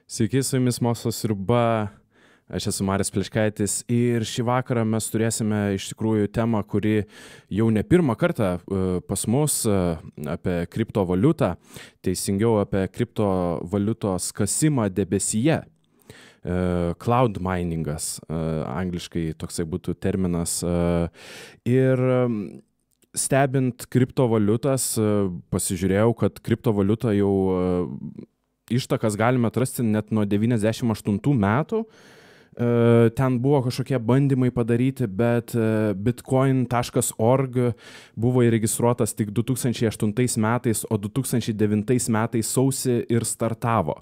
Sveiki, su jumis Mokslo sriuba, aš esu Marius Plečkaitis ir šį vakarą mes turėsime iš tikrųjų temą, kuri jau ne pirmą kartą pas mus apie kriptovaliutą, teisingiau apie kriptovaliutos kasimą debesyje. Cloud miningas, angliškai toksai būtų terminas. Ir stebint kriptovaliutas, pasižiūrėjau, kad kriptovaliutą jau ištakas galime atrasti net nuo 98 metų. Ten buvo kažkokie bandymai padaryti, bet bitcoin.org buvo įregistruotas tik 2008 metais, o 2009 metais sausį ir startavo.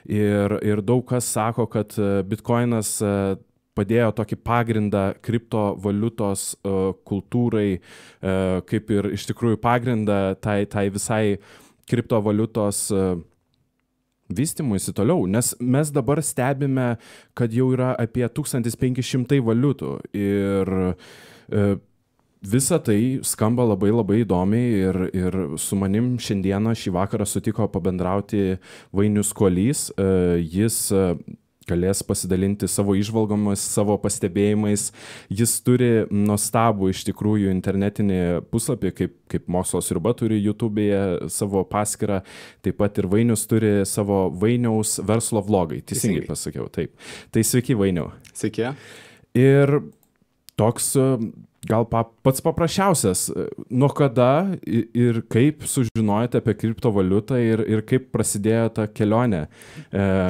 Ir daug kas sako, kad bitcoinas padėjo tokį pagrindą kriptovaliutos kultūrai, kaip ir iš tikrųjų pagrindą tai visai kriptovaliutos vystymuisi toliau, nes mes dabar stebime, kad jau yra apie 1500 valiutų ir visa tai skamba labai įdomiai ir su manim šiandieną šį vakarą sutiko pabendrauti Vainius Kuolys. Jis galės pasidalinti savo įžvalgomis, savo pastebėjimais. Jis turi nuostabų iš tikrųjų internetinį puslapį, kaip Mokslo sriuba turi YouTube'e savo paskyrą, taip pat ir Vainius turi savo Vainiaus verslo vlogai. Teisingai pasakiau, taip. Tai sveiki, Vainiau. Sveiki. Ir toks gal pats paprasčiausias, nuo kada ir kaip sužinojote apie kriptovaliutą ir kaip prasidėjo ta kelionė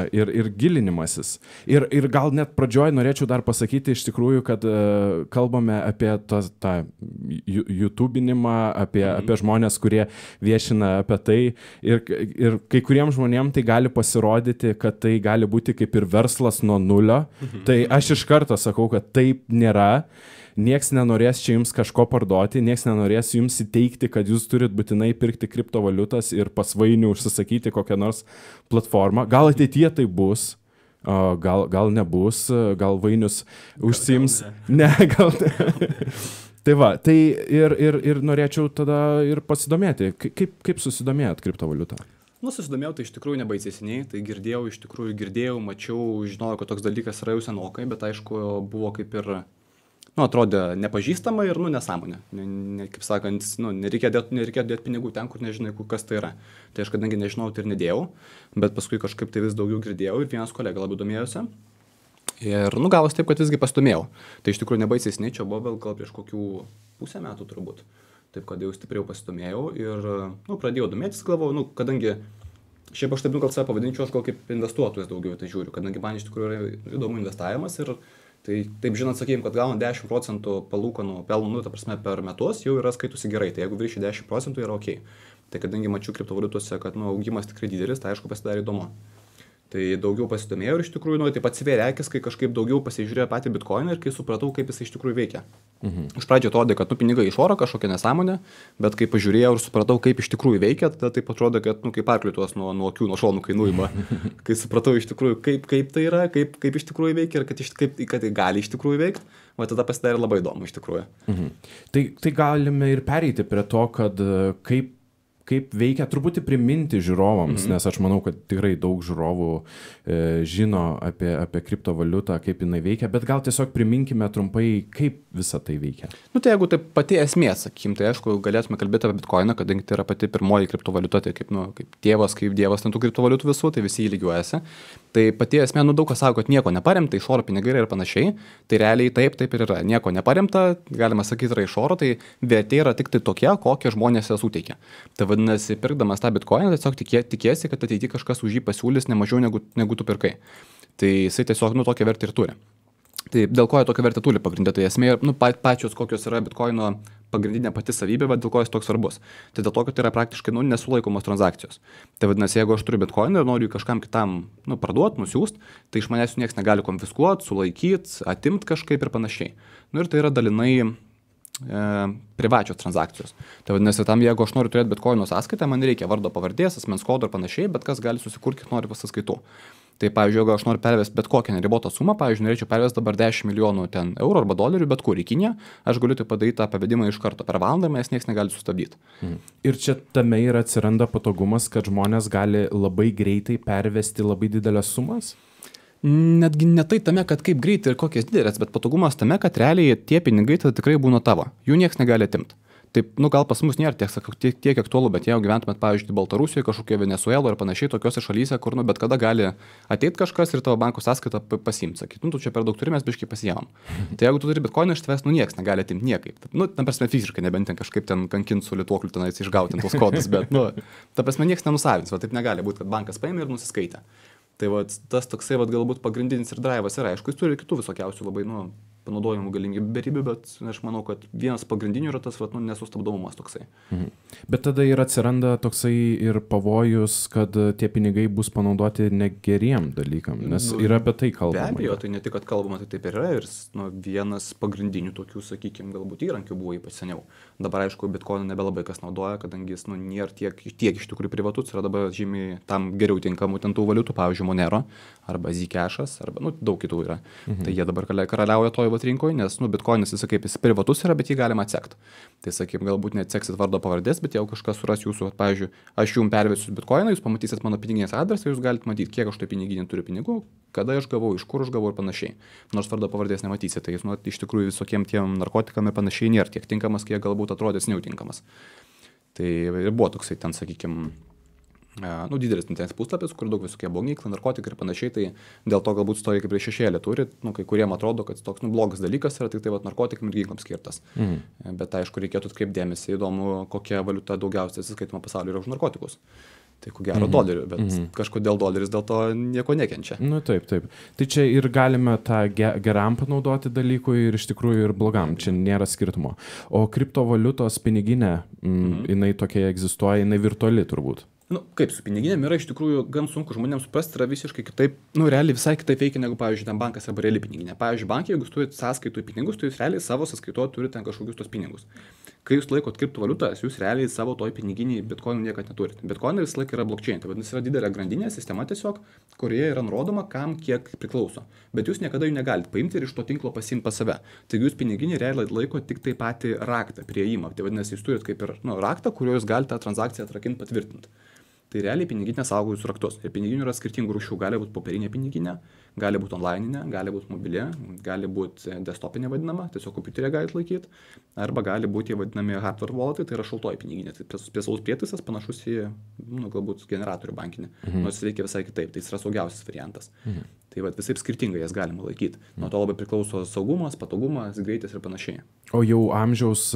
ir gilinimasis. Ir gal net pradžioj norėčiau dar pasakyti iš tikrųjų, kad kalbame apie tą YouTubinimą, apie žmonės, kurie viešina apie tai ir kai kuriems žmonėms tai gali pasirodyti, kad tai gali būti kaip ir verslas nuo nulio. Tai aš iš karto sakau, kad taip nėra. Nieks nenorės čia jums kažko parduoti, nieks nenorės jums įteikti, kad jūs turit būtinai pirkti kriptovaliutas ir pas Vainių užsisakyti kokią nors platformą. Gal ateityje tai bus, gal nebus, gal Vainius užsiims. Gal ne. Tai va, tai ir norėčiau tada ir pasidomėti, kaip susidomėjot kriptovaliutą? Susidomėjau, tai iš tikrųjų nebaisesniai, tai girdėjau, mačiau, žinojau, kad toks dalykas yra jau senokai, bet aišku, buvo kaip ir atrodė nepažįstama ir nesąmonė. Kaip sakant, nereikia dėti pinigų ten, kur nežinai, kas tai yra. Tai aš kadangi nežinau, tai ir nedėjau, bet paskui kažkaip tai vis daugiau girdėjau ir vienas kolega labai domėjosi. Ir gavos taip, kad visgi pasidomėjau. Tai iš tikrųjų nebaisesniai, čia buvo gal prieš kokių pusę metų turbūt. Taip, kad jau stipriau pasidomėjau ir pradėjau domėtis, galvojau, kadangi šiaip aš taip gal save pavadinčiau, aš gal kaip investuotojas daugiau tai žiūriu, kadangi man iš tikrųjų yra įdomu investavimas ir tai taip žinot, sakykime, kad gaunant 10% palūkanų pelnų, ta prasme, per metus jau yra skaitusi gerai, tai jeigu viršį 10% yra ok. Tai kadangi mačiau kriptovaliutose, kad augimas tikrai didelis, tai aišku pasidarė įdomu. Tai daugiau pasidomėjau ir iš tikrųjų, taip atsivėrė akis, kai kažkaip daugiau pasižiūrėjau patį bitcoiną ir kai supratau, kaip jis iš tikrųjų veikia. Iš pradžio atrodė, kad pinigai iš oro kažkokia nesąmonė, bet kai pažiūrėjau ir supratau, kaip iš tikrųjų veikia, tada taip atrodo, kad kaip arkliuos nuo akių, nuo šonų kainuojama. Kai supratau iš tikrųjų, kaip tai yra, kaip iš tikrųjų veikia ir kad tai gali iš tikrųjų veikti, o tada pasidarė labai įdomu iš tikrųjų. Tai galime ir pereiti prie to, kad kaip veikia, truputį priminti žiūrovams, nes aš manau, kad tikrai daug žiūrovų žino apie kriptovaliutą, kaip jinai veikia, bet gal tiesiog priminkime trumpai, kaip visa tai veikia. Tai jeigu tai pati esmė, sakykim, tai aišku, galėtume kalbėti apie bitcoiną, kadangi tai yra pati pirmoji kriptovaliuta, tai kaip dievas ten tų kriptovaliutų visų, tai visi jį lygiuojasi. Tai pati esmė, daug kas sako, kad nieko neparemta, iš oro pinigai ir panašiai, tai realiai taip ir yra. Nieko neparemta, galima sakyti, yra iš oro, tai vertė yra tik tai tokia, kokią žmonės ją suteikia. Tai vadinasi, pirkdamas tą bitcoiną, tiesiog tikiesi, kad ateityje kažkas už jį pasiūlys ne mažiau negu tu pirkai. Tai jisai tiesiog tokią vertę ir turi. Tai dėl ko jie tokią vertę turi pagrindė, tai esmė pačios kokios yra bitcoino pagrindinė pati savybė, bet dėl ko jis toks svarbus. Tai dėl to, kad tai yra praktiškai nesulaikomos transakcijos. Tai vadinasi, jeigu aš turiu bitcoiną ir noriu kažkam kitam parduoti, nusiųsti, tai iš manęs niekas negali konfiskuoti, sulaikyti, atimti kažkaip ir panašiai. Ir tai yra dalinai privačios transakcijos. Tai vadinasi, tam jeigu aš noriu turėti bitcoino sąskaitą, man reikia vardo pavardės, asmens kodo ir panašiai, bet kas gali susikurti, kiek nori pas sąskaitų. Tai, pavyzdžiui, jeigu aš noriu pervesti bet kokią neribotą sumą, pavyzdžiui, norėčiau pervesti dabar 10 milijonų ten eurų arba dolerių, bet kur į Kiniją, aš galiu tai padaryti tą pavedimą iš karto per valandą, nes niekas negali sustabdyti. Ir čia tame ir atsiranda patogumas, kad žmonės gali labai greitai pervesti labai didelės sumas? Netgi ne tai tame, kad kaip greitai ir kokias didelės, bet patogumas tame, kad realiai tie pinigai tada tikrai būna tavo. Jų niekas negali atimti. Taip, gal pas mus nėra tiek aktualu, bet jeigu gyventumėt, pavyzdžiui, Baltarusijoje, kažkokie Venezueloje ir panašiai, tokiose šalyse, kur, bet kada gali ateiti kažkas ir tavo banko sąskaitą pasiimti, sakyti, tu čia per daug turime, mes biškai pasiėmam. Tai jeigu tu turi bitkoiną iš tavęs, niekas negali atimti niekaip. Tam prasme fiziškai, nebent ten kažkaip ten kankinti su lituokliu tenais išgauti tos kodus, bet, ta prasme niekas nenusavins, taip negali būti, kad bankas paėmė ir nusiskaitė. Tai tas toksai galbūt pagrindinis ir drivas yra, aišku, jis turi kitų visokiausių labai, panaudojimų galimybių berybių, bet aš manau, kad vienas pagrindinių yra tas nesustabdomumas toksai. Bet tada ir atsiranda toksai ir pavojus, kad tie pinigai bus panaudoti negeriem dalykam, nes yra apie tai kalbama. Be abejo, tai ne tik, kad kalbama, tai taip ir yra ir vienas pagrindinių tokių, sakykime, galbūt įrankių buvo ypač seniau. Dabar, aišku, bitkoiną nebelabai kas naudoja, kadangi jis nėra tiek iš tikrųjų privatus, yra dabar žymiai tam geriau tinkamų ten tų valiutų, pavyzdžiui, Monero arba Zcash'as arba daug kitų yra. Tai jie dabar karaliauja toj rinkoje, nes bitkoinas jis kaip jis privatus yra, bet jį galima atsekti. Tai sakykim, galbūt neatseksit vardo pavardės, bet jeigu kažkas suras jūsų, pavyzdžiui, aš jums pervesiu bitkoiną, jūs pamatysit mano piniginės adresą, jūs galite matyti, kiek aš tai piniginė turiu pinigų, kada aš gavau, iš kur aš gavau ir panašiai. Nors vardo pavardės nematysite, tai jis iš tikrųjų visokiem tiem narkotikam ir panašiai nėra tiek tinkamas, kiek galbūt atrodys neutinkamas. Tai ir buvo toksai ten, sakykim, didelis internetinis puslapis, kur daug visokie blogiklai, narkotikai ir panašiai, tai dėl to galbūt stoja kaip ir šešėlį turi, kai kuriem atrodo, kad toks blogas dalykas yra tik tai narkotikam ir ginklams skirtas. Bet aišku, reikėtų atkreipti dėmesį, įdomu, kokia valiuta daugiausiai atsiskaitoma pasaulyje yra už narkotikus. Tai ko gero dolerių, bet kažkodėl doleris dėl to nieko nekenčia. Taip. Tai čia ir galime tą geram panaudoti dalykui ir iš tikrųjų ir blogam, čia nėra skirtumo. O kriptovaliutos piniginė, jinai tokia egzistuoja, jinai virtuali turbūt. Kaip su piniginėm yra iš tikrųjų gan sunku žmonėms suprasti, yra visiškai kitaip, realiai visai kitaip veikia negu, pavyzdžiui, ten bankas arba reali piniginė. Pavyzdžiui, bankai, jeigu jūs turite sąskaitų pinigus, tai jūs realiai savo sąskaitoje turite ten kažkokius tos pinigus. Kai jūs laikot kriptovaliutas, jūs realiai savo toj piniginiai bitkoinų niekad neturite. Bitkoinai visą laiką yra blockchain, tai vadinasi yra didelė grandinė sistema tiesiog, kurioje yra nurodoma, kam kiek priklauso. Bet jūs niekada jų negalite paimti ir iš to tinklo pasiimti pas save. Taigi jūs piniginį realiai laiko tik tai patį raktą, prieėjimą. Tai vadinasi, jūs turite kaip ir raktą, kuriuo jūs galite tą transakciją atrakinti, patvirtinti. Tai realiai piniginė saugo jūsų raktus. Ir piniginių yra skirtingų rūšių. Gali būti popierinė piniginė, gali būti onlininė, gali būti mobilė, gali būti desktopinė vadinama, tiesiog kompiuterė galite laikyti, arba gali būti vadinami hardware walletai, tai yra šaltoji piniginė. Tai specialus prietaisas panašus į, galbūt generatorių bankinį, nors veikia visai kitaip. Tai jis yra saugiausias variantas. Tai visai skirtingai jas galima laikyti. Nuo to labai priklauso saugumas, patogumas, greitis ir panašiai. O jau amžiaus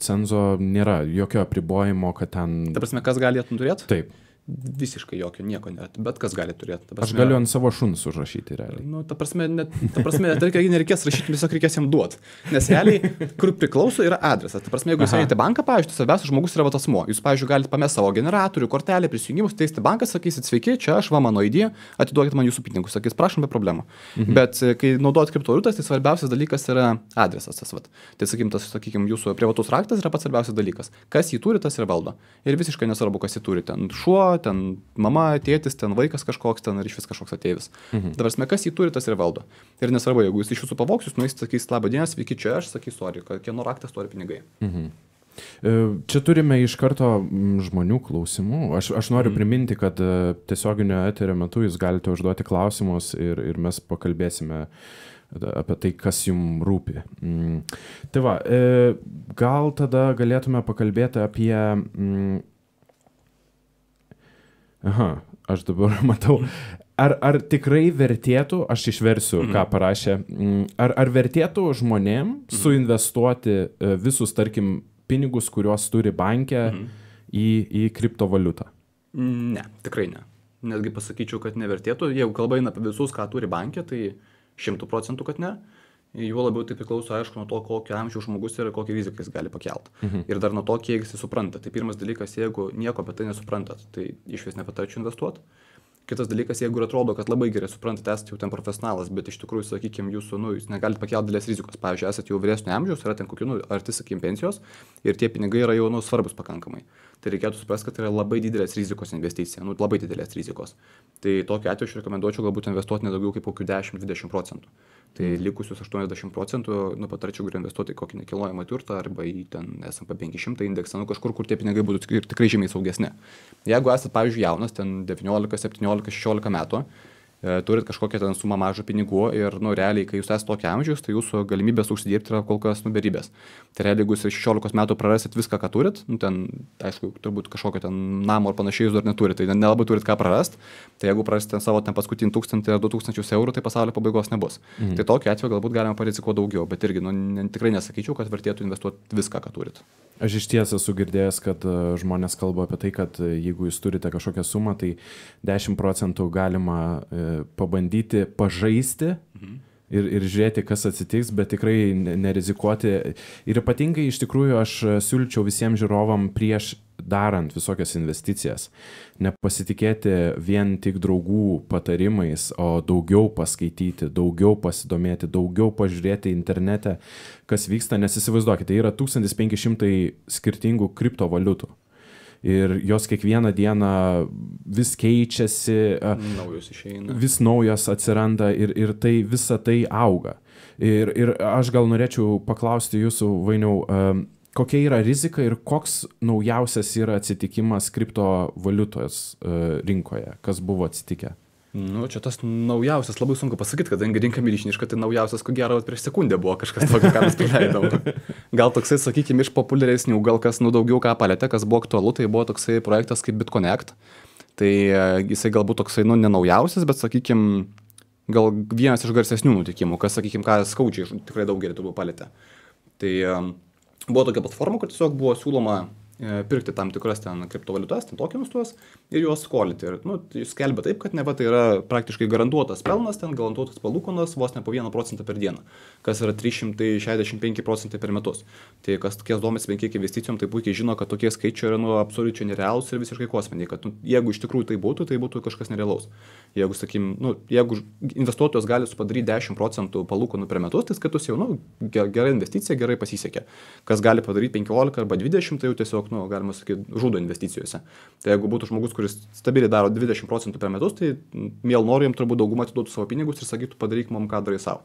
cenzo nėra jokio apribojimo, kad ten... Ta prasme, kas gali turėti? Taip. Visiškai jokio, nieko nėra, bet kas gali turėti. Prasme, aš galiu ant savo šuns užrašyti realiai. Ta prasme, nereikės rašyti, tiesiog reikės jam duoti. Nes realiai, kur priklauso, yra adresas. Ta prasme, jeigu jūs einate banką, pavyzdžiui, svarbiausias žmogus yra asmuo. Jūs, pavyzdžiui, galite pamesti savo generatorių, kortelę, prisijungimus, teisti banką, sakysit, sveiki, čia aš, mano ID, atiduokit man jūsų pinigus, sakys, prašom, be problemų. Bet kai naudojat kriptovaliutas, tai svarbiausias dalykas yra adresas. Tai sakykim, jūsų privatus raktas yra pats svarbiausias dalykas. Kas jį turi, tas ir valdo. Ir visiškai nesvarbu, kas jį turi. Ten šuo, ten mama, tėtis, ten vaikas kažkoks, ten ar iš vis kažkoks ateivis. Dabar mes kas jį turi, tas ir valdo. Ir nesvarbu, jeigu jūs iš jūsų pavogs, jūs nueisite, sakys, labą dieną, sveiki, čia aš, sakys, sorry, kieno raktas turi pinigai. Čia turime iš karto žmonių klausimų. Aš noriu priminti, kad tiesioginio eterio metu jūs galite užduoti klausimus ir mes pakalbėsime apie tai, kas jums rūpi. Tai va, gal tada galėtume pakalbėti apie... aš dabar matau. Ar tikrai vertėtų, aš išversiu, ką parašė, ar vertėtų žmonėm suinvestuoti visus, tarkim, pinigus, kuriuos turi banke į kriptovaliutą? Ne, tikrai ne. Netgi pasakyčiau, kad nevertėtų. Jeigu kalba eina apie visus, ką turi banke, tai 100%, kad ne. Juo labiau tai priklauso, aišku, nuo to, kokio amžiaus žmogus yra ir kokią riziką jis gali pakelti. Ir dar nuo to, kiek jis supranta. Tai pirmas dalykas, jeigu nieko apie tai nesuprantat, tai iš vis nepatarčiau investuoti. Kitas dalykas, jeigu ir atrodo, kad labai gerai suprantate, esate jau ten profesionalas, bet iš tikrųjų, sakykime, jūs negalite pakelti didelės rizikos. Pavyzdžiui, esate jau vyresnio amžiaus, yra ten kokių, arti, sakykime, pensijos ir tie pinigai yra jau svarbus pakankamai. Tai reikėtų suprasti, kad tai yra labai didelės rizikos investicija, labai didelės rizikos. Tai tokiu atveju aš rekomenduočiau galbūt investuoti nedaugiau kaip kokių 10-20%. Tai likusius 80% patarčiau geriau investuoti į kokį nekilnojamą turtą arba į ten S&P 500 indeksą, kažkur, kur tie pinigai būtų tikrai žymiai saugesni. Jeigu esate, pavyzdžiui, jaunas, ten 19, 17, 16 metų, turit kažkokią ten sumą mažą pinigų ir, realiai, kai jūs esate tokia amžiaus, tai jūsų galimybės užsidirbti yra kol kas beribės. Tai realiai, jeigu jūs 16 metų prarasit viską, ką turit, ten, aišku, turbūt kažkokio ten namo ar panašiai jūs dar neturite, tai nelabai turit ką prarast, tai jeigu prarasite savo ten paskutinį 1000 ar 2000 eurų, tai pasaulio pabaigos nebus. Tai tokiu atveju galbūt galima parizikuoti daugiau, bet irgi, tikrai nesakyčiau, kad vertėtų investuoti viską, ką turit. Aš iš ties esu girdėjęs, kad žmonės kalba apie tai, kad jeigu jūs turite kažkokią sumą, tai 10% galima pabandyti pažaisti ir žiūrėti, kas atsitiks, bet tikrai nerizikuoti. Ir ypatingai iš tikrųjų aš siūlyčiau visiems žiūrovam prieš darant visokias investicijas nepasitikėti vien tik draugų patarimais, o daugiau paskaityti, daugiau pasidomėti, daugiau pažiūrėti internete, kas vyksta, nes įsivaizduokite, tai yra 1500 skirtingų kriptovaliutų. Ir jos kiekvieną dieną vis keičiasi, naujos išeina. Vis naujos atsiranda ir tai visa tai auga. Ir aš gal norėčiau paklausti jūsų, Vainiau, kokia yra rizika ir koks naujausias yra atsitikimas kriptovaliutos rinkoje? Kas buvo atsitikę? Čia tas naujausias labai sunku pasakyti, kadangi rinka milžiniška, tai naujausias, ko gero, prieš sekundę buvo kažkas tokio, ką mes praleidom. Gal toksai, sakykime, iš populiaresnių, gal kas daugiau ką palėtė, kas buvo aktualu, tai buvo toksai projektas kaip BitConnect. Tai jisai galbūt toksai, ne naujausias, bet, sakykime, gal vienas iš garsesnių nutikimų, kas, sakykime, ką skaudžiai tikrai daugelį turbūt palėtė. Tai buvo tokia platforma, kur tiesiog buvo siūloma pirkti tam tikras ten kriptovaliutas, ten tokenus tuos ir juos skolinti. Ir skelbia taip, kad neva tai yra praktiškai garantuotas pelnas, ten garantuotas palūkanos vos ne po 1% per dieną, kas yra 365% per metus. Tai kas domisi bent kiek investicijom, tai puikiai žino, kad tokie skaičiai yra absoliučiai nerealūs ir visiškai kosminiai, kad jeigu iš tikrųjų tai būtų kažkas nerealaus. Jeigu, jeigu investuotojas gali padaryti 10% palūkanų per metus, tai skaitus jau, gera investicija, gerai pasisekė. Kas gali padaryti 15 arba 20, tai jau tiesiog, galima sakyti, žudo investicijose. Tai jeigu būtų žmogus, kuris stabiliai daro 20% per metus, tai miel noriu jam turbūt daugumą atiduotų savo pinigus ir sakytų, padaryk mum, ką darai savo.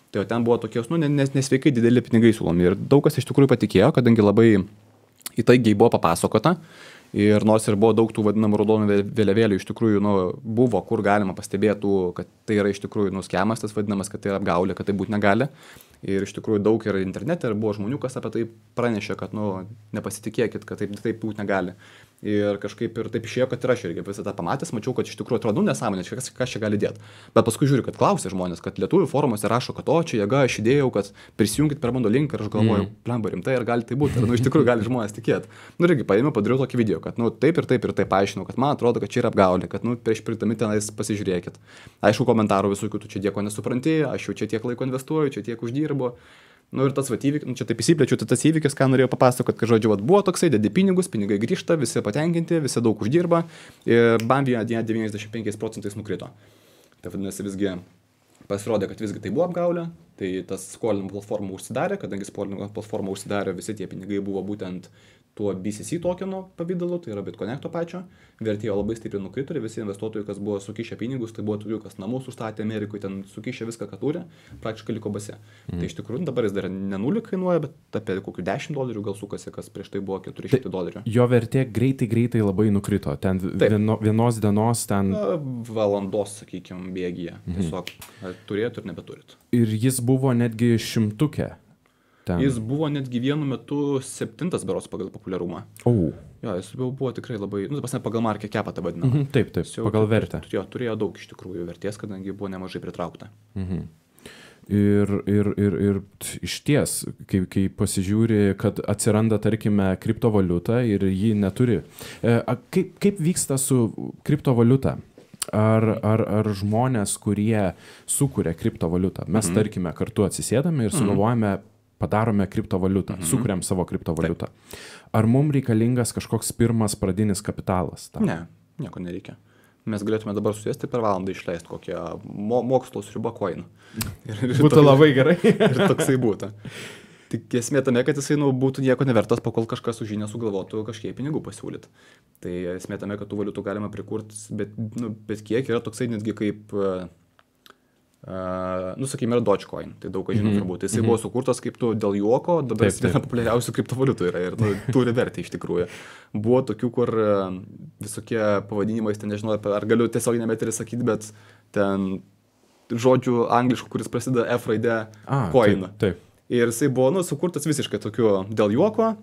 Tai ten buvo tokios, nesveikai dideli pinigai siūlomi. Ir daug kas iš tikrųjų patikėjo, kadangi labai įtaigiai buvo papasakota. Ir nors ir buvo daug tų vadinamų raudonų vėliavėlių, iš tikrųjų, buvo, kur galima pastebėtų, kad tai yra iš tikrųjų skemas, tas vadinamas, kad tai yra apgaulė, kad tai būti negali. Ir iš tikrųjų daug yra internete ir buvo žmonių, kas apie tai pranešė, kad, nepasitikėkit, kad taip būti negali. Ir kažkaip ir taip išėjo, kad ir aš irgi visą tą pamatęs, mačiau, kad iš tikrųjų atrodo, nesąmonė, kas čia gali dėti. Bet paskui žiūriu, kad klausė žmonės, kad lietuvių forumuose rašo, kad čia jėga, aš įdėjau, kad prisijungit per mano link ir aš galvoju, blemba rimtai, ar gali tai būti. Ir iš tikrųjų gali žmonės tikėti. Irgi paėmiau, padariau tokį video, kad taip ir taip paaiškinau, kad man atrodo, kad čia yra apgaulė, kad prieš pirkdami tenais pasižiūrėkit. Aišku, komentarų visokių, tu čia nieko nesupranti, aš jau čia tiek laiko investuoju, čia tiek uždirbu. Ir tas įvykis, čia taip įsiplečiu, tai tas įvykis, ką norėjau papasakoti, kad žodžiu, buvo toksai, dedi pinigus, pinigai grįžta, visi patenkinti, visi daug uždirba ir bam vieną dieną 95% nukrito. Tai vadinasi, visgi pasirodė, kad visgi tai buvo apgaulė, tai tas skolinimo platforma užsidarė, kadangi skolinimo platforma užsidarė, visi tie pinigai buvo būtent tuo BCC tokeno pavydalu, tai yra BitConnecto pačio, vertėjo labai stipriai nukrito ir visi investuotojai, kas buvo sukišę pinigus, tai buvo tokių, kas namus užstatė Amerikoje, ten sukišę viską, ką turi, praktiškai liko base. Tai iš tikrųjų dabar jis dar ne 0 kainuoja, bet apie kokių $10 gal sukasi, kas prieš tai buvo $400. Jo vertė greitai labai nukrito, ten vienos dienos ten... Valandos, sakykime, bėgyje. Tiesiog turėtų ir nebeturit. Ir jis buvo netgi 100. Ten. Jis buvo netgi vienu metu 7 berods pagal populiarumą. Jo, jis buvo tikrai labai, pagal market capą tą vadinamą. Taip, pagal vertę. Turėjo daug iš tikrųjų vertės, kadangi buvo nemažai pritraukta. Ir iš ties, kai pasižiūri, kad atsiranda, tarkime, kriptovaliuta ir ji neturi. Kaip vyksta su kriptovaliuta? Ar žmonės, kurie sukuria kriptovaliutą, mes, tarkime, kartu atsisėdame ir sugalvojame, padarome kriptovaliutą, sukuriam savo kriptovaliutą. Ar mums reikalingas kažkoks pirmas pradinis kapitalas? Ne, nieko nereikia. mes galėtume dabar susėsti per valandą išleisti kokią mokslo sriubą coin. Būtų labai gerai. Ir toksai būtų. Tik esmė tame, kad jisai būtų nieko nevertas, pakol kažkas už jį nesugalvotų kažkiek pinigų pasiūlyti. Tai esmė tame, kad tų valiutų galima prikurti, bet kiek yra toksai netgi kaip, sakykime, yra Dogecoin, tai daug ką žinom turbūt. Jisai buvo sukurtas kaip dėl juoko, dabar jis viena populiariausių kriptovaliutų yra ir turi vertę iš tikrųjų. Buvo tokių, kur visokie pavadinimai, ten nežinau, ar galiu tiesiog nemetį sakyti, bet ten žodžių angliškų, kuris prasideda F raidė coin. Taip. Ir jisai buvo sukurtas visiškai tokiu dėl juoko.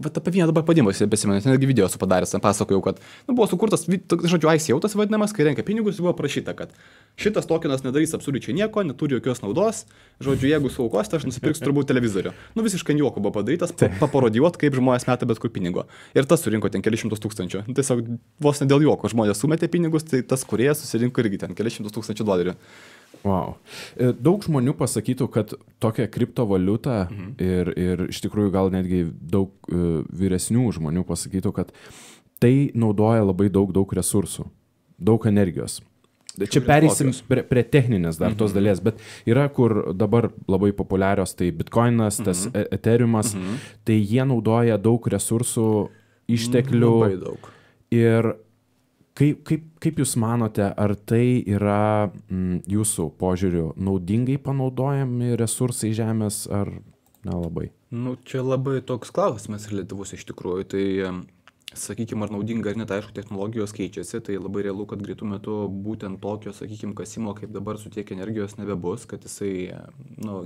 Bet apie vieną dabar padimą besimenu, netgi video esu padaręs, ten pasakojau, kad buvo sukurtas, žodžiu, ICO tas vadinamas, kai renka pinigus, buvo prašyta, kad šitas tokenas nedarys absoliučiai nieko, neturi jokios naudos, žodžiu, jeigu suaukosite, aš nusipirksiu turbūt televizorių. Visiškai juoko buvo padarytas, paparodijuot, kaip žmonės meta bet kur pinigo. Ir tas surinko ten kelius šimtus tūkstančių. Tiesiog vos ne dėl juoko žmonės sumetė pinigus, tai tas kūrėjas susirinko irgi ten kelius šimtus tūkstančių dolerių. Wow. Daug žmonių pasakytų, kad tokia kriptovaliuta ir iš tikrųjų gal netgi daug vyresnių žmonių pasakytų, kad tai naudoja labai daug resursų, daug energijos. Čia pereisim prie techninės dar tos dalies, bet yra kur dabar labai populiarios, tai Bitcoinas, tas Ethereumas, tai jie naudoja daug resursų, išteklių. Labai daug. Ir kaip jūs manote, ar tai yra jūsų požiūriu naudingai panaudojami resursai žemės, ar nelabai? Čia labai toks klausimas reliatyvus iš tikrųjų. Tai, sakykime, ar naudinga ar ne, tai aišku, technologijos keičiasi, tai labai realu, kad greitų metu būtent tokio, sakykime, kasimo, kaip dabar su tiek energijos nebebus, kad jisai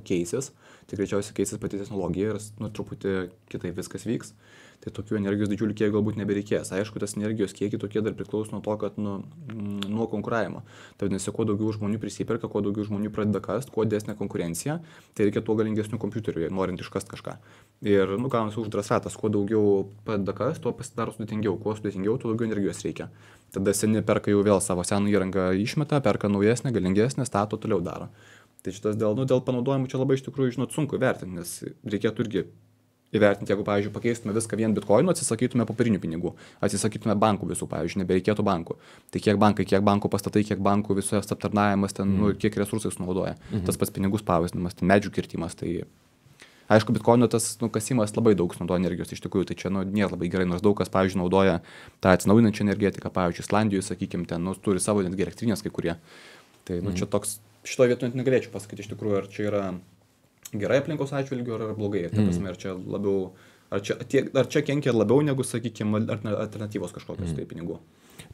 keisis. Tai greičiausiai keisis pati technologija ir truputį kitaip viskas vyks. Tai tokių energijos didžiulių kiekį galbūt nebereikės. Aišku, tas energijos kiekį tokie dar priklauso nuo to, kad nuo konkuravimo. Tai vadinasi, kuo daugiau žmonių prisiperka, kuo daugiau žmonių pradeda kast, kuo didesnė konkurencija, tai reikia tuo galingesnių kompiuterių, norint iškast kažką. Ir, gaunasi uždaras ratas, kuo daugiau pradeda kast, tuo pasidaro sudėtingiau, kuo sudėtingiau, tuo daugiau energijos reikia. Tada seni perka jau vėl savo seną įrangą išmeta, perka naujesnę, galingesnę, stato, toliau daro. Tai šitas dėl panaudojimų čia labai iš tikrųjų, sunku vertinti, nes reikėtų irgi įvertinti, jeigu, pavyzdžiui, pakeistume viską vien bitkoinu, atsisakytume popierinių pinigų, atsisakytume bankų visų, pavyzdžiui, nebereikėtų bankų. Tai kiek bankų pastatai, kiek bankų visos aptarnavimas, ten, kiek resursai sunaudoja. Tas pats pinigų spausdinimas, medžių kirtimas. Tai aišku, bitkoino tas kasimas labai daug sunaudoja energijos iš tikrųjų, tai čia nėra labai gerai, nors daug kas, pavyzdžiui, naudoja tą atsinaujinančią energetiką, pavyzdžiui, Islandijoje, sakykime, ten turi savo netgi elektrinės kai kurie. Tai čia toks, šitoje vietoje net negalėčiau pasakyti iš tikrųjų, ar čia yra gerai aplinkos atžvilgiu ar blogai. Ta prasme, ar čia labiau, ar čia kenkia labiau negu, sakykime, alternatyvos kažkokios tai pinigų.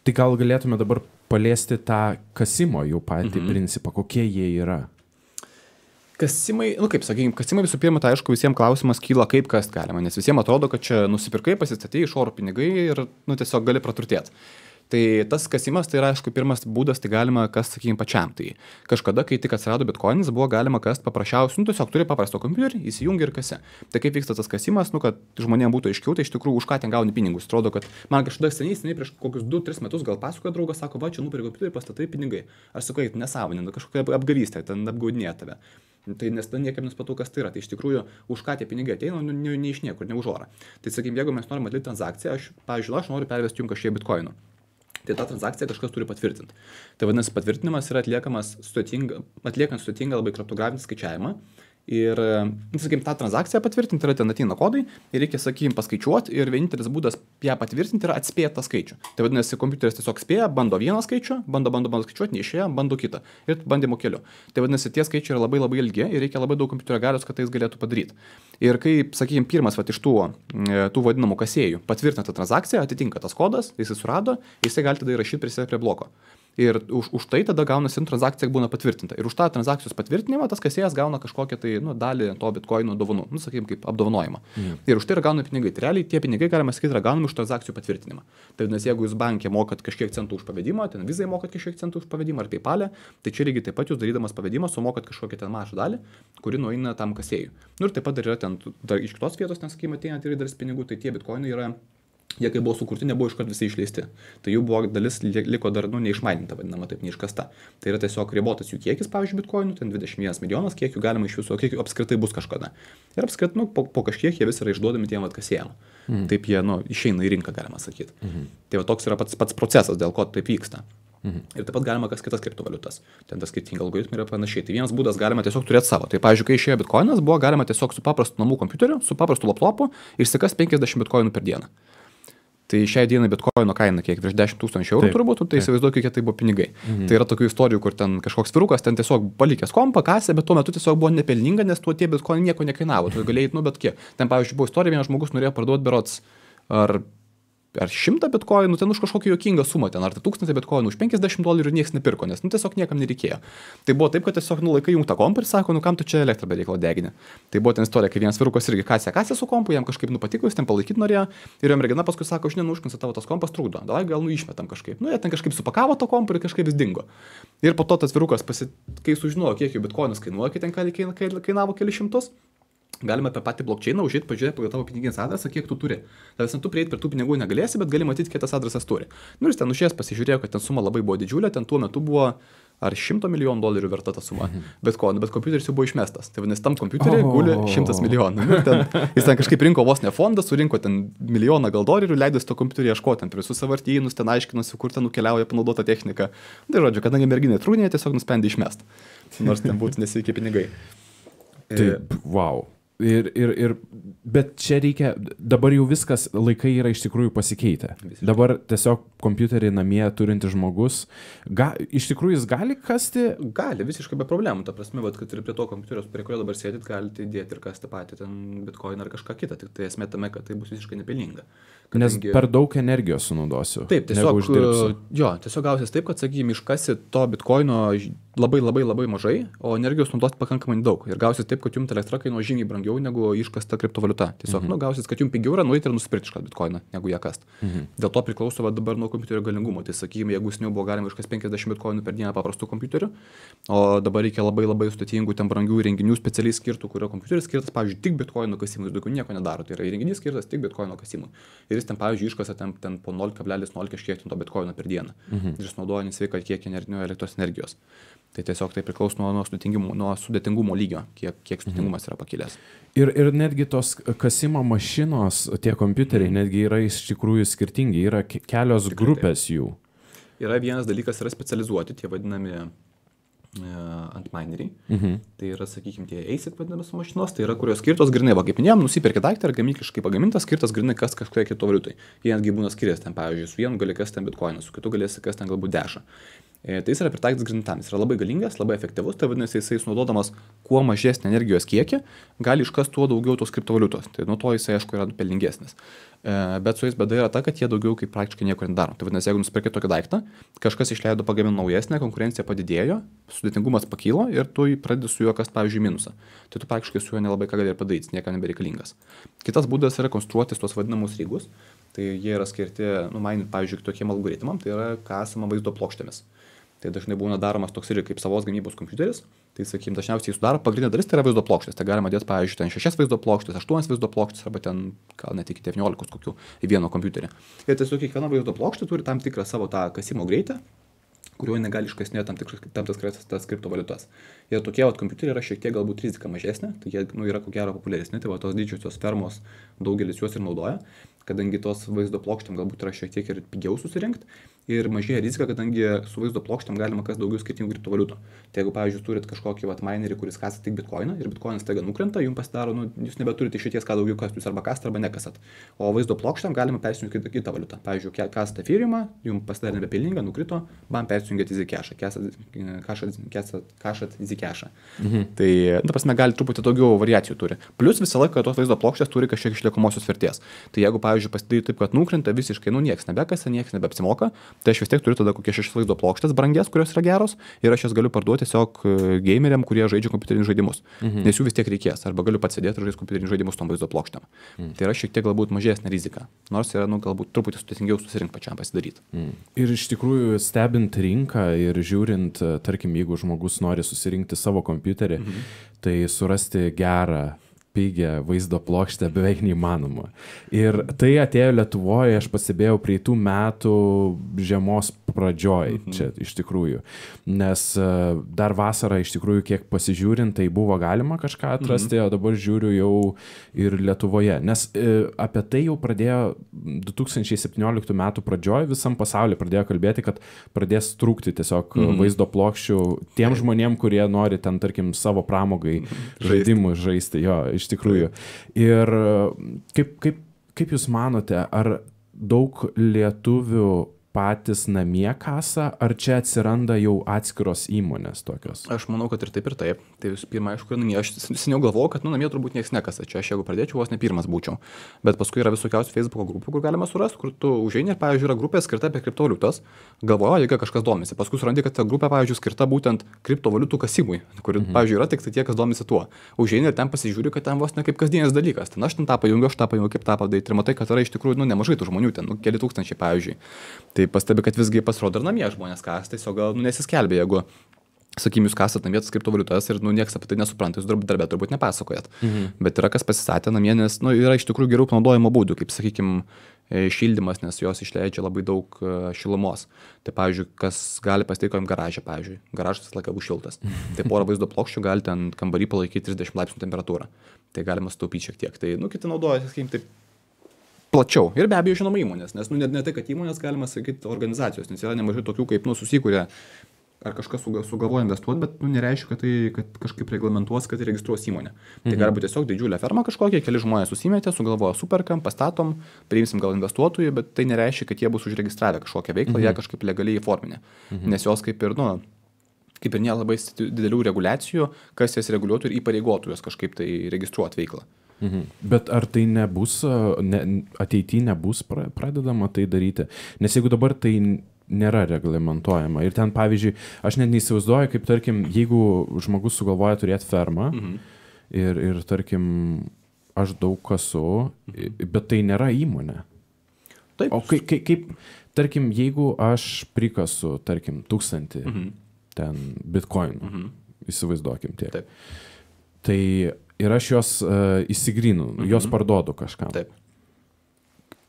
Tai gal galėtume dabar paliesti tą kasimo jų patį principą, kokie jie yra? Kasimai, kaip sakykime, kasimai visų pirma, tai aišku, visiems klausimas kyla, kaip kast galima, nes visiems atrodo, kad čia nusipirkai, pasistatei iš oro pinigai ir tiesiog gali praturtėti. Tai tas kasimas, tai yra, aišku, pirmas būdas, tai galima kast, sakykime, pačiam. Tai kažkada, kai tik atsirado bitkoinas, buvo galima kast paprasčiausiai, tiesiog turi paprasto kompiuterį, įsijungi ir kasi. Tai kaip vyksta tas kasimas, kad žmonėms būtų aiškiau, tai iš tikrųjų už ką ten gauni pinigus. Atrodo, kad man kažkada seniai prieš kokius 2-3 metus gal pasakojo draugas, sako, va, čia nupirkai kompiuterį, pastatai pinigai. Aš sakau, nesąmonė, kažkokia apgavystė, ten apgaudinėja tave. Tai nes ten niekam nespatau, kas tai yra. Tai iš tikrųjų, už ką tie pinigai ateina, ne iš niekur, ne už orą. Tai sakykime, jeigu mes norime atlikti transakciją, aš noriu pervesti jums kažkiek bitkoinų. Tai tą transakciją kažkas turi patvirtinti. Tai vadinasi, patvirtinimas yra atliekant sudėtingą labai kriptografinį skaičiavimą. Ir, sakykime, tą transakciją patvirtinti yra ten ateina kodai ir reikia, sakykime, paskaičiuoti ir vienintelis būdas ją patvirtinti yra atspėti tą skaičių. Tai vadinasi, kompiuteris tiesiog spėja, bando vieną skaičių, bando skaičiuoti, neišėjo, bando kitą ir bandymo keliu. Tai vadinasi, tie skaičiai yra labai ilgi ir reikia labai daug kompiuterio galios, kad tai jis galėtų padaryti. Ir kai, sakykime, pirmas iš tų vadinamų kasėjų patvirtina tą transakciją, atitinka tas kodas, jisai surado, jisai gali tada įrašyti prie bloko. Ir už tai tada gaunasi transakcija būna patvirtinta. Ir už tą transakcijos patvirtinimą tas kasėjas gauna kažkokią tai dalį to bitkoino dovanų, sakykime, kaip apdovanojimą. Ir už tai yra gaunami pinigai. Tai realiai tie pinigai, galima sakyti, yra gaunami už transakcijų patvirtinimą. Tai nes jeigu jūs bankė mokat kažkiek centų už pavedimą, ten Vizai mokat kažkiek centų už pavedimą ar PayPal'e, tai čia lygiai taip pat jūs darydamas pavedimą sumokat kažkokią ten mažą dalį, kuri nueina tam kasėjui. Ir taip pat dar yra ten iš kitos vietos, nes sakykime, ateina ir dalis pinigų, tai tie bitkoinai yra jie kai buvo sukurti, nebuvo iškart visi išleisti. Tai jų buvo dalis liko dar, neišmaininta, vadinama taip, neiškasta. Tai yra tiesiog ribotas jų kiekis, pavyzdžiui, bitkoinų, ten 21 milijonas, kiek jų galima iš viso, kiek jų apskritai bus kažkada. Ir apskritai, po kažkiek jie vis yra išduodami tiem atkasėjam. Taip jie, išeina į rinką, galima sakyti. Tai va toks yra pats procesas, dėl ko taip vyksta. Ir taip pat galima kas kitas kriptovaliutas. Ten tas skirtingi algoritmai yra panašiai. Tai vienas būdas galima tiesiog turėti savo. Tai pavyzdžiui, kai išėjo bitkoinas, buvo galima tiesiog su paprastu namų kompiuteriu, su paprastu laptopu išsikas 50 bitkoinų per dieną. Tai šiai dienai bitkoino kaina kiek virš 10 000 eurų turbūt, tai įsivaizduoju, kiek tai buvo pinigai. Tai yra tokių istorijų, kur ten kažkoks vyrukas ten tiesiog palikęs kompą, kasė, bet tuo metu tiesiog buvo nepelninga, nes tuo tie bitkoinai nieko nekainavo. Tu galėjai, bet kiek. Ten pavyzdžiui buvo istorija, vienas žmogus norėjo parduoti berods ar 100 bitkoinų, ten už kažkokią juokingą sumą, ten ar 1000 bitkoinų, už $50 ir niekas nepirko, nes tiesiog niekam nereikėjo. Tai buvo taip, kad tiesiog laikai jungtą kompą ir sako, kam tu čia elektrą be reikalo degini. Tai buvo ten istorija, kai vienas vyrukas irgi kasė su kompu, jam kažkaip patiko, jis ten palaikyti norėjo ir jo mergina paskui sako, žinai, užknisa tavo tas kompas trukdo, davai gal išmetam kažkaip. Jie ten kažkaip supakavo to kompą ir kažkaip vis dingo. Ir po to tas vyrukas, kai sužinojo, kiek jų bitkoinas kainuoja, kai ten kainavo kelius šimtus, galima apie patį blokčeiną užėti, pažiūrėti pagal tavo piniginės adresą, kiek tu turi. Tai tu prieiti prie tų pinigų negalėsi, bet gali matyti, kiek tas adresas turi. Ir ten užėjęs pasižiūrėjo, kad ten suma labai buvo didžiulė, ten tuo metu buvo ar $100 milijonų verta ta suma. Bet kompiuteris jau buvo išmestas. Tai vadinasi, tam kompiuteriui guli 100 milijonų. Jis ten kažkaip rinko vos ne fondą, surinko ten milijoną gal dolerių, leidosi to kompiuterį ieškoti, ten prie visus sąvartynus, ten aiškinosi, kur ten nukeliauja panaudota technika. Tai žodžiu, kadangi merginai trūnė, tiesiog nusprendė išmesti. Nors ten būtų nesveikie pinigai. Taip, wow. Bet čia reikia, dabar jau viskas, laikai yra iš tikrųjų pasikeitę. Visiškai. Dabar tiesiog kompiuterį namie turintis žmogus, iš tikrųjų jis gali kasti? Gali, visiškai be problemų. Ta prasme, kad ir prie to kompiuterio, prie kurio dabar sėdit, galite įdėti ir kasti patį ten bitcoin ar kažką kitą. Tik tai esmė tame, kad tai bus visiškai nepelninga. Nes per daug energijos sunaudosiu. Taip, tiesiog gausis taip, kad, sakykime, iškasi to bitcoino labai mažai, o energijos naudoti pakankamai daug. Ir gausis taip, kad jums elektra kainuoja žymiai brangiau negu iškasta kriptovaliuta. Tiesiog gausis, kad jums pigiau yra nueiti ir nusipirkti šitą bitcoiną, negu ją kast. Dėl to priklauso dabar nuo kompiuterio galingumo. Tai, sakykime, jeigu seniau buvo galima iškasti 50 bitcoinų per dieną paprastų kompiuterių, o dabar reikia labai sudėtingų, ten brangių įrenginių specialiai skirtų, kurio kompiuteris skirtas, pavyzdžiui, tik bitcoinų kasimui, daugiau nieko nedaro. Tai yra įrenginys skirtas tik bitcoino kasimui. Ir jis ten, pavyzdžiui, iškasa ten po 0,0 kažkiek to bitcoino per dieną. Ir jis naudoja nesveiką kiekį elektros energijos. Tai tiesiog tai priklauso nuo sudėtingumo lygio, kiek sudėtingumas yra pakilęs. Ir netgi tos kasimo mašinos, tie kompiuteriai, netgi yra iš tikrųjų skirtingi, yra kelios grupės jų. Yra vienas dalykas, yra specializuoti, tie vadinami antmineriai. Tai yra, sakykime, tie ASIC vadinamas mašinos, tai yra, kurios skirtos grinai, va, kaip minėjom, nusipirki daiktą ir gamykliškai pagamintas, skirtas grinai kas kažkokia kriptovaliutai. Jie netgi būna skiriasi ten, pavyzdžiui, su vienu gali kasti ten bitcoiną, su kitu galėsi kasti ten galbūt dešą. Tai jis yra pritaikytas grintam, jis yra labai galingas, labai efektyvus, tai vadinasi, jisai sunaudodamas kuo mažesnį energijos kiekį, gali iškasti tuo daugiau tos kriptovaliutos. Tai nuo to jisai, aišku, yra pelningesnis. Bet su jais bėda yra ta, kad jie daugiau kaip praktiškai nieko nedaro. Tai vadinasi, jeigu nusipirkai tokį daiktą, kažkas išleido pagaminti naujesnę, konkurencija padidėjo, sudėtingumas pakilo ir tu pradedi su juo kasti, pavyzdžiui, minusą. Tai tu praktiškai su juo nelabai ką gali ir padaryti, niekam nebereikalingas. Kitas būdas yra konstruoti tuos vadinamus rygus. Tai jie yra skirti, mainint, pavyzdžiui, tokiem algoritmam, tai yra kasama vaizdo plokštėmis. Tai dažnai būna daromas toks irgi kaip savos gamybos kompiuteris. Tai, sakykime, dažniausiai sudaro pagrindinė dalis, tai yra vaizdo plokštės. Tai galima dėti, pavyzdžiui, ten 6 vaizdo plokštės, 8 vaizdo plokštės arba ten gal net iki 19 kokių į vieną kompiuterį. Ir tiesiog kiekviena vaizdo plokštė turi tam tikrą savo tą kasimo greitį, kuriuo negali iškasinėti tam tikras kriptovaliutas. Ir tokie kompiuteriai yra šiek tiek galbūt rizika mažesnė, tai jie yra ko gero populiaresni, tai tos didžiosios fermos daugelis juos ir naudoja, kadangi tos vaizdo plokštėm galbūt yra šiek tiek ir pigiau susirinkti. Ir mažėja rizika, kadangi su vaizdo plokštėm galima kas daugiau skirtingų kriptovaliutų. Tai jeigu, pavyzdžiui, turit kažkokį minerį, kuris kasa tik bitcoiną ir bitcoinas taiga nukrenta, jums pasidaro, jūs nebeturite išeities, ką daugiau kastų, jūs arba kasat, arba nekasat. O vaizdo plokštėm galima persijungti kitą valiutą. Pavyzdžiui, kasat Ethereumą, jums pasidarė nebepelninga, nukrito, bam persijungėt EasyCash, kasat EasyCash. Tai, ta prasme, gali truputį daugiau variacijų turi. Plus visą laiką tos vaizdo plokštės turi kažkiek išliekamosios vertės. Tai jeigu, pavyzdžiui, pasidarė taip, kad nukrenta visiškai, nieks nebekasa, nieks nebeapsimoka, tai aš vis tiek turiu tada kokie 6 vaizdo plokštės brangias, kurios yra geros, ir aš jas galiu parduoti tiesiog gameriam, kurie žaidžia kompiuterinius žaidimus. Nes jų vis tiek reikės, arba galiu pats sėdėti ir žaisti kompiuterinius žaidimus tom vaizdo plokštėm. Tai yra šiek tiek galbūt mažesnė rizika, nors yra galbūt truputį sudėtingiau susirinkti pačiam pasidaryti. Ir iš tikrųjų stebint rinką ir žiūrint, tarkim, jeigu žmogus nori susirinkti savo kompiuterį, tai surasti gerą pigią vaizdo plokštę beveik neįmanoma. Ir tai atėjo Lietuvoje, aš pastebėjau, praeitų metų žiemos pradžioj, čia iš tikrųjų. Nes dar vasarą iš tikrųjų, kiek pasižiūrint, tai buvo galima kažką atrasti, o dabar žiūriu jau ir Lietuvoje. Nes apie tai jau pradėjo 2017 metų pradžioj, visam pasaulyje pradėjo kalbėti, kad pradės trūkti tiesiog vaizdo plokščių tiem žmonėm, kurie nori ten, tarkim, savo pramogai žaidimų žaisti. Jo, iš tikrųjų. Ir kaip jūs manote, ar daug lietuvių patys namie kasa, ar čia atsiranda jau atskiros įmonės tokios? Aš manau, kad ir taip, ir taip. Tai visų pirma, aišku, namie. Aš seniau galvojau, kad namie turbūt niekas nekasa. Čia aš jeigu pradėčiau, vos ne pirmas būčiau. Bet paskui yra visokiausių Facebook'o grupų, kur galima surasti, kur tu užeini ir, pavyzdžiui, yra grupė skirta apie kriptovaliutas. Galvoju, jeigu kažkas domisi. Paskui surandi, kad ta grupė, pavyzdžiui, skirta būtent kriptovaliutų kasimui, kur, pavyzdžiui, yra tik tai tie, kas domisi tuo. Užeini ir ten pasižiūri, kad ten vos ne kaip kasdienis dalykas. Ten aš ten tą pajungiu, kaip tą padaryti. Ir matai, kad yra iš tikrųjų nemažai tų žmonių, ten keli tūkstančiai, pavyzdžiui. Tai pastebi, kad visgi pasirodo ir namie žmonės kas, tiesiog gal nesiskelbė, jeigu, sakykim, jūs kasat namie tas kriptovaliutas ir nieks apie tai nesupranta, jūs darbė turbūt nepasakojat. Bet yra kas pasistatė namie, nes yra iš tikrųjų geriau panaudojimo būdų, kaip, sakykim, šildymas, nes jos išleidžia labai daug šilumos. Tai, pavyzdžiui, kas gali pasitikojim garažą, pavyzdžiui. Garažas visą laiką bus šiltas. Tai porą vaizdo plokščių gali ten kambarį palaikyti 30 laipsnių temperatūrą. Tai galima sutaupyti šiek tiek. Tai, kiti naudoja, sakykim, taip plačiau. Ir be abejo, žinoma, įmonės, nes ne tai, kad įmonės, galima sakyti, organizacijos, nes yra nemažai tokių, kaip susikūrė ar kažkas sugalvoja investuoti, bet nereiškia, kad kažkaip reglamentuos, kad registruos įmonę. Tai gali būti tiesiog didžiulė ferma kažkokia, keli žmonės susimetė, sugalvoja, superkam, pastatom, priimsim gal investuotojų, bet tai nereiškia, kad jie bus užregistravę kažkokią veiklą, jie kažkaip legaliai įforminę. Nes jos kaip ir nėra labai didelių reguliacijų, kas jas reguliuotų ir įpareigotų jos kažkaip tai registruoti veiklą. Bet ar tai nebus, ateityje nebus pradedama tai daryti? Nes jeigu dabar tai nėra reglamentuojama ir ten, pavyzdžiui, aš net neįsivaizduoju, kaip, tarkim, jeigu žmogus sugalvoja turėti fermą ir tarkim, aš daug kasu, bet tai nėra įmonė. Taip. O kaip, tarkim, jeigu aš prikasu, tarkim, 1000 ten bitcoinų, įsivaizduokim tiek. Taip. Tai ir aš jos įsigrinu, jos parduodu kažkam. Taip.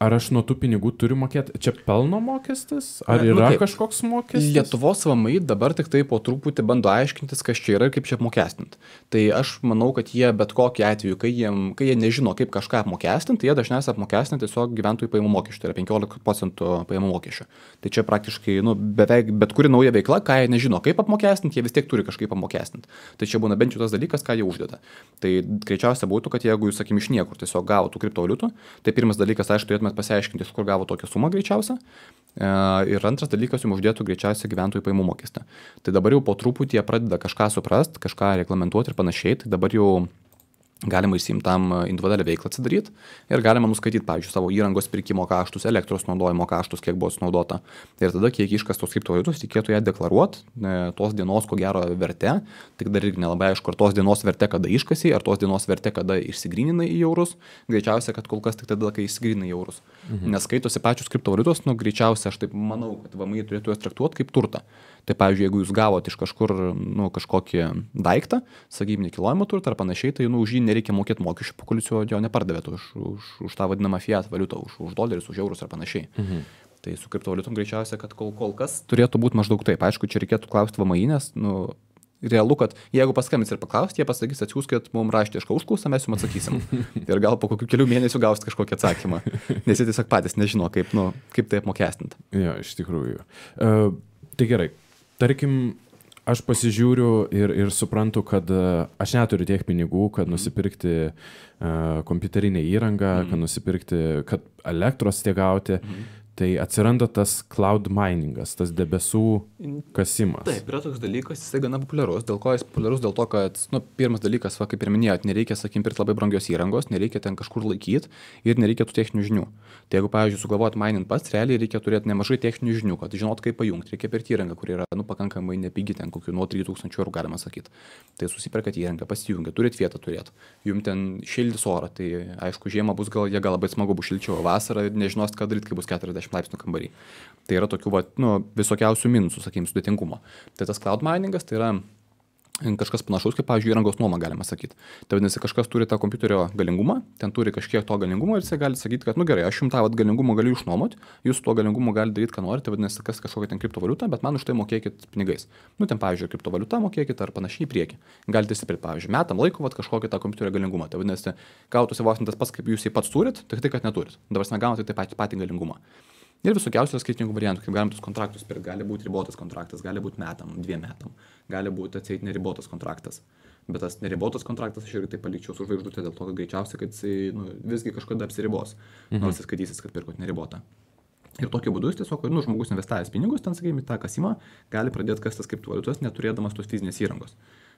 Ar aš nuo tų pinigų turiu mokėti? Čia pelno mokestis? Ar yra kažkoks mokestis? Lietuvos VMI dabar tik tai po truputį bando aiškintis, kas čia yra ir kaip čia apmokestinti. Tai aš manau, kad jie bet kokiu atveju, kai jie nežino, kaip kažką apmokestinti, jie dažniausiai apmokestina tiesiog gyventojų pajamų mokesčių, tai yra 15% pajamų mokesčio. Tai čia praktiškai beveik bet kuri nauja veikla, ką jie nežino, kaip apmokestinti, jie vis tiek turi kažkaip apmokestinti. Tai čia būna bent jau tas dalykas, ką jie uždeda. Tai greičiausia būtų, kad jeigu jūs, sakykim, iš niekur tiesiog gavote kriptovaliutų, tai pirmas dalykas, aišku, turėtumėt pasiaiškinti, kur gavo tokią sumą greičiausia. Ir antras dalykas, jums uždėtų greičiausiai gyventojų pajamų mokestį. Tai dabar jau po truputį jie pradeda kažką suprast, kažką reglamentuoti ir panašiai. Tai dabar jau galima išsiimti tam individualią veiklą atsidaryti ir galima nuskaityti, pavyzdžiui, savo įrangos pirkimo kaštus, elektros naudojimo kaštus, kiek buvo sunaudota. Ir tada, kiek iškastos kriptovaliutos, reikėtų ją deklaruoti, tos dienos, ko gero, verte. Tik dar irgi nelabai aišku, ar tos dienos verte, kada iškasi, ar tos dienos verte, kada išsigryninai į eurus. Greičiausia, kad kol kas tik tada, kai išsigryninai į eurus. Nes skaitosi pačios kriptovaliutos, greičiausia, aš taip manau, kad VMI turėtų jas traktuoti kaip turtą. Tai, pavyzdžiui, jeigu jūs gavote iš kažkur kažkokį daiktą, sakykime, nekilnojamą turtą ar panašiai, tai už jį nereikia mokėti mokesčių, po kol jūs jo nepardavėte už tą vadinamą fiat valiutą, už dolerius, už eurus ar panašiai. Tai su kriptovaliutom greičiausia, kad kol kas turėtų būti maždaug taip. Aišku, čia reikėtų klausti VMI, nes realu, kad jeigu paskambins ir paklausti, jie pasakys, atsiųskit mums raštišką užklausą, mes jums atsakysim. Ir gal po kokių kelių mėnesių gausit kažkokį atsakymą. Nes jie tiesiog patys nežino, kaip tai apmokestinti. Jo, iš tikrųjų. Tai gerai. Tarkim, aš pasižiūriu ir suprantu, kad aš neturiu tiek pinigų, kad nusipirkti kompiuterinę įrangą, kad nusipirkti, kad elektros tiek gauti. Tai atsiranda tas cloud miningas, tas debesų kasimas. Taip, yra toks dalykas, jisai gana populiarus. Dėl ko jis populiarus? Dėl to, kad, pirmas dalykas, kaip ir minėjot, nereikia, sakykim, pirkti labai brangios įrangos, nereikia ten kažkur laikyti ir nereikia tų techninių žinių. Tai jeigu, pavyzdžiui, sugalvoti mining pats, realiai reikia turėti nemažai techninių žinių, kad žinot, kaip pajungti. Reikia pirkti įrangą, kuri yra, pakankamai nepigi, ten kokių nuo 3000 eurų galima sakyti. Tai susiperkat įrangą, pasijungia, turit vietą turėti. Jums ten šildys orą, tai aišku, žiemą bus gal labai smagu bus šilčiau, vasarą nežinos, ką daryti, kai bus 40 laipsnių kambarį. Tai yra tokių visokiausių minusų, sakykime, sudėtingumo. Tai tas cloud miningas, tai yra kažkas panašaus, kaip, pavyzdžiui, įrangos nuoma, galima sakyti. Tai vadinasi, kažkas turi tą kompiuterio galingumą, ten turi kažkiek to galingumo ir jisai gali sakyti, kad, nu gerai, aš jums tą galingumą galiu išnuomoti, jūs tuo galingumu galite daryti, ką norite, vadinasi, kas kažkokia ten kriptovaliuta, bet man už tai mokėkit pinigais. Nu, ten, pavyzdžiui, kriptovaliuta mokėkit ar panašiai į priekį. Galite įsipirkti, pavyzdžiui, metam laiko kažkokį tą kompiuterio galingumą. Tai vadinasi, gautųsi vos ne tas pats, kaip jūs jį pats turit, tik tai, kad neturit. Dabar negaunate tai patį galingumą. Ir visokiausių skirtingų variantų, kaip galim tus kontraktus pirkti. Gali būti ribotas kontraktas, gali būti metam, 2 metam, gali būti atseit neribotas kontraktas. Bet tas neribotas kontraktas aš irgi tai palikčiau su žvaigždute, dėl to, kad greičiausiai, kad jisai visgi kažkada apsiribos, nors jis skaitysis, kad pirkot neribotą. Ir tokiu būdu jis tiesiog, žmogus investavęs pinigus, ten, sakykime, tą kasimą, gali pradėti kastas kriptovaliutas, neturėdamas tos fizinės įrangos.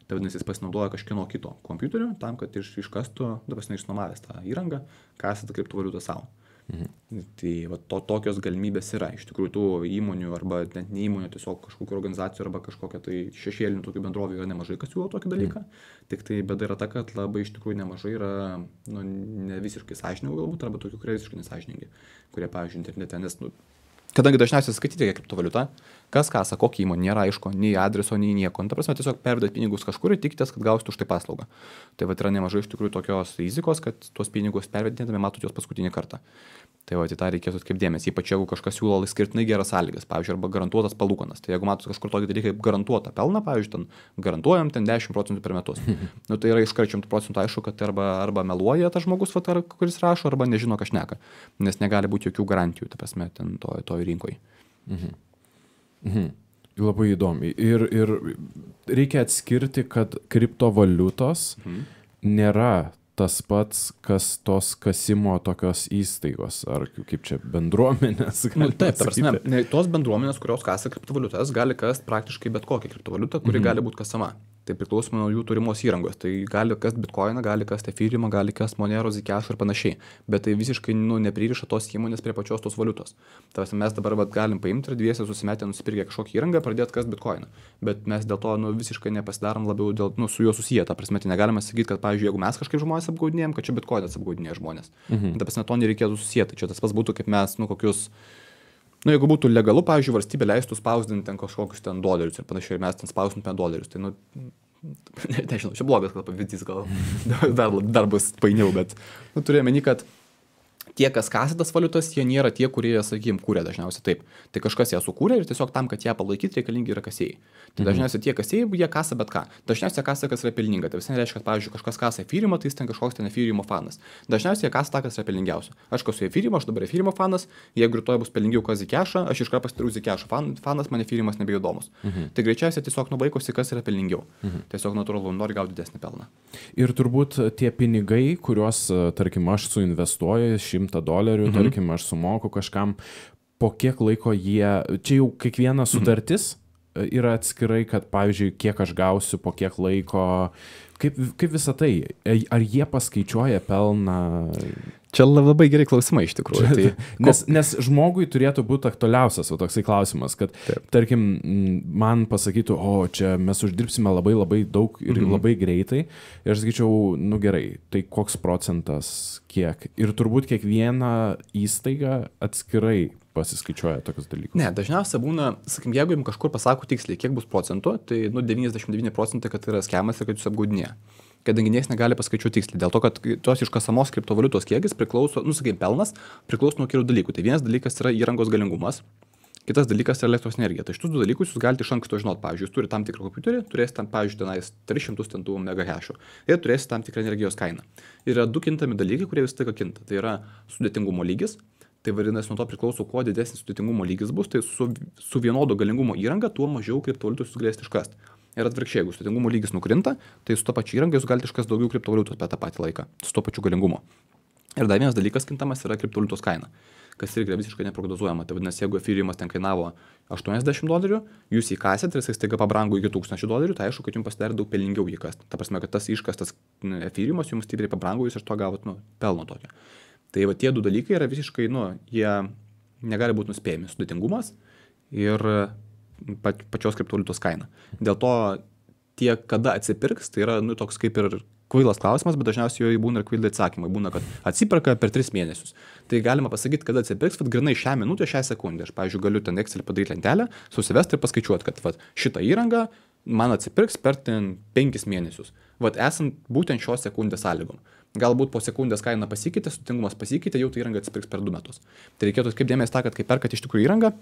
Tai vadinasi, jis pasinaudoja kažkieno kito kompiuterio tam, kad iškastų, dabar išnuomavęs tą įrangą, kasė tą kriptovaliutą savo. Tai va, tokios galimybės yra. Iš tikrųjų, tų įmonių arba net ne įmonių, tiesiog kažkokių organizacijų arba kažkokia tai šešėlinių tokių bendrovių yra nemažai, kas siūlo tokį dalyką. Tik tai bėda yra ta, kad labai iš tikrųjų nemažai yra ne visiškai sąžiningų galbūt, arba tokių, kurie visiškai nesąžiningi, kurie, pavyzdžiui, internete, nes, kadangi dažniausiai skaityti kriptovaliutą, kas kasa, kokia įmonė, nėra aišku, nei adreso, nei nieko. Ta prasme, tiesiog pervedat pinigus kažkur ir tikitės, kad gausite už tai paslaugą. Tai va yra nemažai iš tikrųjų tokios rizikos, kad tuos pinigus pervedinėdami matot juos paskutinį kartą. Tai va, į tą reikėtų atkreipdėmėsi, ypač jeigu kažkas siūlo skirtinai geras sąlygas, pavyzdžiui, arba garantuotas palūkanas. Tai jeigu matot kažkur tokį dalyką kaip garantuotą pelną, pavyzdžiui, ten garantuojam ten 10% per metus. Tai yra iš 100% aišku, kad arba meluoja tas žmogus, kuris rašo, arba nežino, ką šneka, nes negali būti jokių garantijų, ta prasme, ten toj rinkoje. Labai įdomi. Ir reikia atskirti, kad kriptovaliutos nėra tas pats, kas tos kasimo tokios įstaigos, ar kaip čia bendruomenės. Taip, ta prasme, tos bendruomenės, kurios kasa kriptovaliutas, gali kast praktiškai bet kokią kriptovaliutą, kuri gali būti kasama. Tai priklausomai nuo jų turimos įrangos. Tai gali kast bitcoiną, gali kast ethereumą, gali kast Monero, Zcash ir panašiai. Bet tai visiškai nepririša tos įmonės prie pačios tos valiutos. Tai mes dabar galim paimti ir dviese susimetę, nusipirkę kažkokį įrangą, pradėti kast bitcoiną. Bet mes dėl to visiškai nepasidarom labiau su juo susiję. Ta prasme, tai negalime sakyti, kad, pavyzdžiui, jeigu mes kažkaip žmonės apgaudinėjom, kad čia bitcoinas apgaudinėja žmonės. Ta prasme, to nereikėtų susijęti. Čia tas pats būtų, kaip mes, kokius... jeigu būtų legalu, pavyzdžiui, valstybė leistų spausdinti ten kažkokius ten dolerius ir panašiai, ir mes ten spausdintume dolerius, tai, nežinau, čia blogas gal pavyzdys, gal dar bus painiau, bet, turėjome meni, kad tie, kas kasa tas valiutas, jie nėra tie, kurie, sakykime, kūrė dažniausiai taip. Tai kažkas ją sukūrė ir tiesiog tam, kad ją palaikyti, reikalingi yra kasėjai. Tai dažniausiai tie kasėjai, jie kasa bet ką. Dažniausiai kasa, kas yra pelninga. Tai visai reiškia, kad, pavyzdžiui, kažkas kasa ethereumą, tai jis ten kažkoks ten ethereum fanas. Dažniausiai jie kasa tą, kas yra pelningiausia. Aš kasu ethereumą, aš dabar ethereum fanas, jeigu rytoj bus pelningiau kas Zcashą, aš iš karto pasidarau Zcash fanas, man ethereum nebeįdomus. Tai greičiausiai tiesiog nubaikosi, kas yra pelningiau. Tiesiog natūralu, nori gauti didesnį pelną. Ir turbūt tie pinigai, kuriuos, tarkim, aš suinvestuoju $100, tarkim, aš sumoku kažkam, po kiek laiko jie, čia jau kiekviena sutartis yra atskirai, kad, pavyzdžiui, kiek aš gausiu, po kiek laiko, kaip visą tai, ar jie paskaičiuoja pelną? Čia labai gerai klausimai iš tikrųjų. Tai, nes žmogui turėtų būti aktualiausias toksai klausimas, kad, tarkim, man pasakytų, čia mes uždirbsime labai labai daug ir labai greitai. Ir aš sakyčiau, gerai, tai koks procentas, kiek? Ir turbūt kiekviena įstaiga atskirai pasiskaičiuoja tokius dalykus. Ne, dažniausiai būna, sakykim, jeigu jums kažkur pasako tiksliai, kiek bus procentų, tai 99% kad yra skemas ir kad jūs apgaudinėja. Kadangi niekas negali paskaičiuoti tiksliai, dėl to, kad tos iškasamos kriptovaliutos kiekis priklauso, sakykim, pelnas priklauso nuo kelių dalykų. Tai vienas dalykas yra įrangos galingumas, kitas dalykas yra elektros energija. Tai šitus du dalykus jūs galite iš anksto žinoti. Pavyzdžiui, jūs turite tam tikrą kompiuterį, turėsite tam, pavyzdžiui, tenais 300 MHz ir turėsite tam tikrą energijos kainą. Yra du kintami dalykai, kurie vis tik kinta. Tai yra sudėtingumo lygis. Tai vadinasi, nuo to priklauso, kuo didesnis sudėtingumo lygis bus, tai su vienodo galingumo įranga, tuo mažiau kriptovaliutų jūs galėsite iškasti. Ir atvirkščiai, jeigu sudėtingumo lygis nukrinta, tai su to pačiu įranga jūs galite iškasti daugiau kriptovaliutos per tą patį laiką, su to pačiu galingumu. Ir dar vienas dalykas kintamas yra kriptovaliutos kaina, kas irgi yra visiškai neprognozuojama. Tai vadinasi, jeigu efyriemas ten kainavo $80, jūs įkasėt ir jis staiga pabrango iki $1000, tai aišku, kad jums pasidarė daug pelningiau jį kasti. Ta prasme, kad tas iškastas efyriemas jums stipriai pabrango, jūs iš to gavot pelno tokio. Tai va tie du dalykai yra visiškai, jie negali būti nuspėjami. Sudėtingumas ir pačios kriptovaliutos kaina. Dėl to tie, kada atsipirks, tai yra toks kaip ir kvailas klausimas, bet dažniausiai jo būna ir kvailai atsakymai. Būna, kad atsiperka per 3 mėnesius. Tai galima pasakyti, kada atsipirks, bet grinai šią minutę, šią sekundę. Aš, pavyzdžiui, galiu ten Excel padaryti lentelę, susivesti ir paskaičiuoti, kad šitą įrangą man atsipirks per 5 mėnesius. Vat esant būtent šios sekundės sąlygom. Galbūt po sekundės kaina pasikeitė, sutingumas pasikeitė, jau tai įranga atsipirks per 2 metus. Tai reikėtų kaip dėmesį tą, kad kai perkat iš tikrųjų įrangą,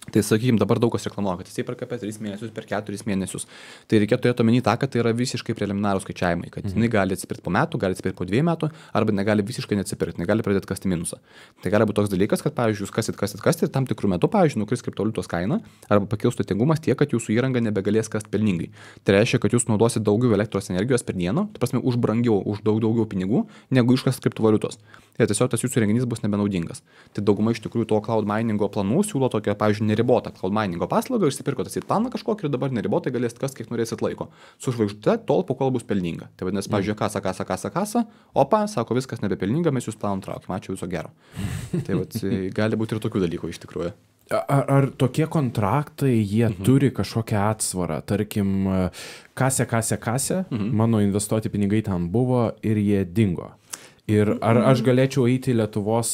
tai sakykime, dabar daug kas reklamuoja, kad jisai perka per 3 mėnesius, per 4 mėnesius. Tai reikėtų turėti omeny tą, kad tai yra visiškai preliminarūs skaičiavimai, kad jinai gali atsipirkti po metų, gali atsipirkti po 2 metų, arba negali visiškai neatsipirkti, negali pradėti kasti minusą. Tai gali būti toks dalykas, kad, pavyzdžiui, jūs kasit ir tam tikrų metų, pavyzdžiui, nukris kriptovaliutos kaina, arba pakils sutingumas tiek, kad jūsų įranga nebegalės kasti pelningai. Tai reiškia, kad jūs naudosite daugiau elektros energijos per dieną, tai prasme, už brangiau, už daugiau pinigų, negu iškas kriptovaliutos. Ir tiesiog tas jūsų renginys bus nebenaudingas. Tai dauguma iš tikrųjų to cloud miningo planų siūlo tokią, pavyzdžiui, neribotą cloud miningo paslaugą, išsipirkote į planą kažkokį ir dabar neribotai galėsite kas kiek norėsit laiko. Su žvaigždute tol, po kol bus pelninga. Tai vadinasi, pavyzdžiui, kasa, opa, sako, viskas nebepelninga, mes jūs planom traukim, ačiū, viso gero. Tai vat, gali būti ir tokių dalykų iš tikrųjų. Ar tokie kontraktai, jie turi kažkokią atsvarą? Tarkim, kasė, mano investuoti pinigai ten buvo ir jie dingo. Ir ar aš galėčiau eiti į Lietuvos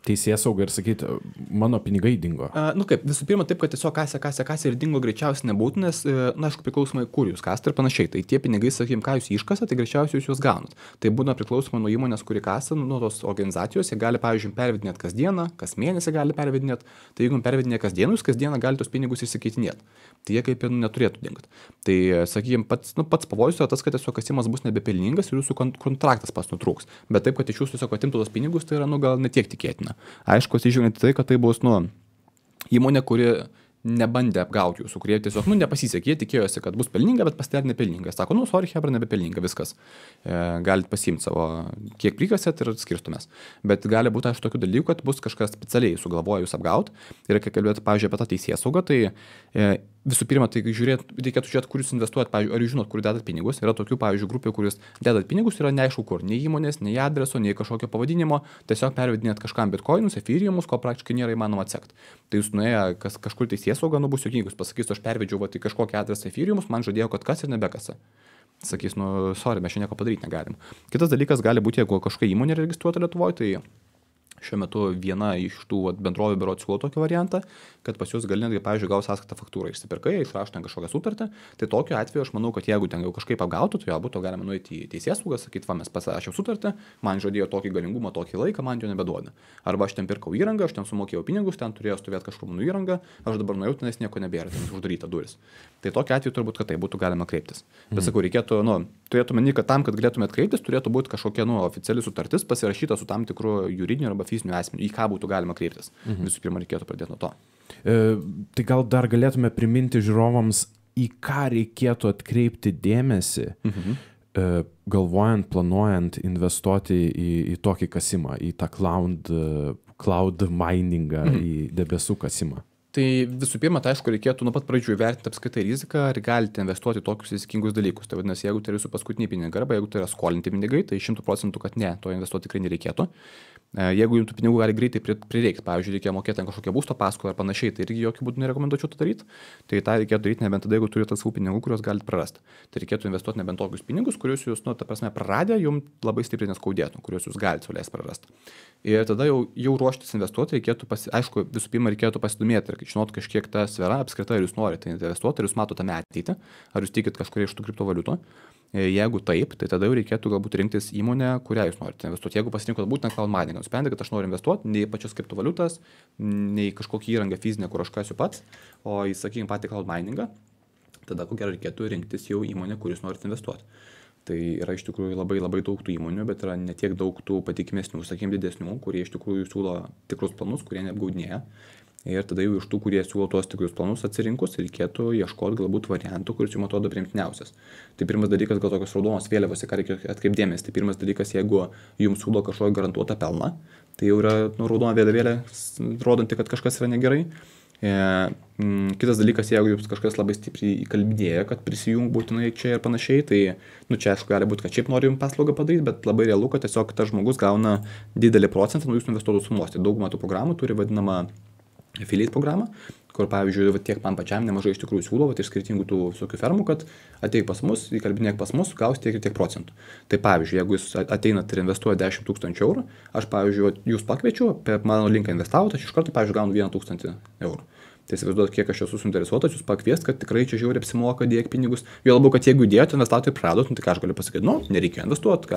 teisėsaugą ir sakyti, mano pinigai dingo? Kaip, visų pirma, taip, kad tiesiog kasė ir dingo greičiausiai nebūtų, nes, aišku, priklausomai, kur jūs kasate ir panašiai. Tai tie pinigai, sakykime, ką jūs iškasate, tai greičiausiai jūs juos gaunat. Tai būna priklausomai nuo įmonės, kuri kasa, nuo tos organizacijos, jie gali, pavyzdžiui, pervedinėti kasdieną, kas mėnesį gali pervedinėti. Tai jeigu pervedinė kasdieną, jūs kasdieną gali tos pinigus išsikeitinėti. Tai jie kaip ir neturėtų dingti. Tai, sakykime, pats pavojus yra tas, kad tiesiog kasimas bus nebepelningas ir jūsų kontraktas pas nutrūks. Bet taip, kad iš jūsų tiesiog atimtų tos pinigus, tai yra, gal netiek tikėtina. Aišku, atsižvelgiant į tai, kad tai bus, įmonė, kuri nebandė apgauti jūsų, kurie tiesiog, nepasisekė, jie tikėjosi, kad bus pelninga, bet pasidarė nepelninga. Sako, sorry, hebra, nebepelninga, viskas. Galite pasiimti savo, kiek prikasėt ir skirstumės. Bet gali būti, aišku, tokių dalykų, kad bus kažkas specialiai sugalvoja jūs apgauti. Ir kai kalbėti, pavyzdžiui, apie tą teisėsaugą, tai visų pirma, tai reikėtų žiūrėti, kur jūs investuojat, pavyzdžiui, ar jūs žinot, kur dedat pinigus. Yra tokių, pavyzdžiui, grupių, kur jūs dedat pinigus, yra neaišku kur, nei įmonės, nei adreso, nei kažkokio pavadinimo, tiesiog pervedinėt kažkam bitkoinus, efyriumus, ko praktiškai nėra įmanoma atsekti. Tai jūs nuėję kažkur teisėsauga, bus juokingus, pasakys, aš pervedžiau į kažkokį adresą efyriumus, man žadėjo, kad kas ir nebekasa. Sakys, sorry, mes čia nieko padaryti negalim. Kitas dalykas gali būti, jeigu kažkokia įmonė registruota Lietuvoje, tai šiuo metu viena iš tų bendrovių berods siūlo tokį variantą, kad pas jūs gali netgi, pavyzdžiui, gaus sąskaitą faktūrą, išsipirkai, išrašo ten kažkokią sutartį, tai tokiu atveju aš manau, kad jeigu ten jau kažkaip apgautų, tai būtų galima nueiti į teisėsaugą, sakyti, mes pasirašėm sutartį, man žadėjo tokį galingumą, tokį laiką, man jo nebeduoda. Arba aš ten pirkau įrangą, aš ten sumokėjau pinigus, ten turėjau stovėti kažkur mano įrangą, aš dabar nuėjau, tenais nieko nebėra, ten uždaryta duris. Tai tokiu atveju turbūt, kad tai būtų galima kreiptis. Bet sakau, reikėtų, turėtų meni, kad tam, kad galėtumėt kreiptis, turėtų būti kažkokia oficiali sutartis pasirašyta su tam tikru juridiniu arba fiziniu asmeniu, į ką būtų galima kreiptis. Visų pirma, reikėtų pradėti nuo to. Tai gal dar galėtume priminti žiūrovams, į ką reikėtų atkreipti dėmesį, galvojant, planuojant investuoti į tokį kasimą, į tą cloud miningą, į debesų kasimą. Tai visų pirma, tai aišku, reikėtų nuo pat pradžių įvertinti apskaitai riziką, ar galite investuoti tokius rizikingus dalykus. Tai vadinasi, jeigu tai yra jūsų paskutiniai pinigai, arba jeigu tai yra skolinti pinigai, tai 100%, kad ne, to investuoti tikrai nereikėtų. Jeigu jums tų pinigų gali greitai prireikti, pavyzdžiui, reikia mokėti kažkokią būsto paskolą ar panašiai, tai irgi jokių būdų nerekomenduočiau to daryti. Tai tą reikėtų daryti nebent tada, jeigu turite savų pinigų, kuriuos galite prarasti. Tai reikėtų investuoti nebent tokius pinigus, kuriuos jūs, ta prasme, praradę, jums labai stipriai neskaudėtų, kuriuos jūs galite leisti prarasti. Ir tada jau ruoštis investuoti reikėtų, aišku, visų pirma reikėtų pasidomėti ir žinot kažkiek tą sferą apskritai, ar jūs norite investuoti, ar jūs matote tame ateitį, ar jūs tikit kažkuria iš tų kriptovaliutų. Jeigu taip, tai tada jau reikėtų galbūt rinktis įmonę, kurią jūs norite investuoti. Jeigu pasirinkot būtent cloud miningą, nusprendė, kad aš noriu investuoti ne į pačias kriptovaliutas, ne į kažkokį įrangą fizinę, kur aš kasiu pats, o į, sakykime, patį cloud miningą, tada ko gero reikėtų rinktis jau įmonę, kur jūs norite investuoti. Tai yra iš tikrųjų labai daug tų įmonių, bet yra ne tiek daug tų patikimesnių, sakykime, didesnių, kurie iš tikrųjų siūlo tikrus planus, kurie neapgaudinėja. Ir tada jau iš tų, kurie siūlo tuos tikrus planus atsirinkus, reikėtų ieškoti galbūt variantų, kuris jums atrodo priimtiniausias. Tai pirmas dalykas, gal tokios raudonos vėliavos, į ką reikia atkreipdėmės. Tai pirmas dalykas, jeigu jums siūlo kažkokį garantuotą pelną, tai jau yra raudona vėliavėlė, rodanti, kad kažkas yra negerai. Kitas dalykas, jeigu jums kažkas labai stipriai įkalbinėja, kad prisijung būtinai čia ir panašiai, tai čia aišku gali būti, kad šiaip nori jums paslaugą padaryti, bet labai realu, kad tiesiog tas žmogus gauna didelį procentą nuo jūsų investuotų sumos. Tai daugumą tų programų turi vadinamą affiliate programą, kur, pavyzdžiui, tiek man pačiam nemažai iš tikrųjų siūlo iš skirtingų tų visokių fermų, kad ateik pas mus, įkalbinėk pas mus, gaus tiek ir tiek procentų. Tai pavyzdžiui, jeigu jūs ateinat ir investuojate 10 000 €, aš, pavyzdžiui, jūs pakviečiu, per mano linką investavot, aš iš karto, pavyzdžiui, gaunu 1 000 €. Tai įsivaizduot, kiek aš esu suinteresuotas, jūs pakviest, kad tikrai čia žiauriai apsimoka dėti pinigus. Jo labiau, kad jeigu įdėjote, investatojai praradot, tai ką aš galiu pasakyti, nereikia investuoti,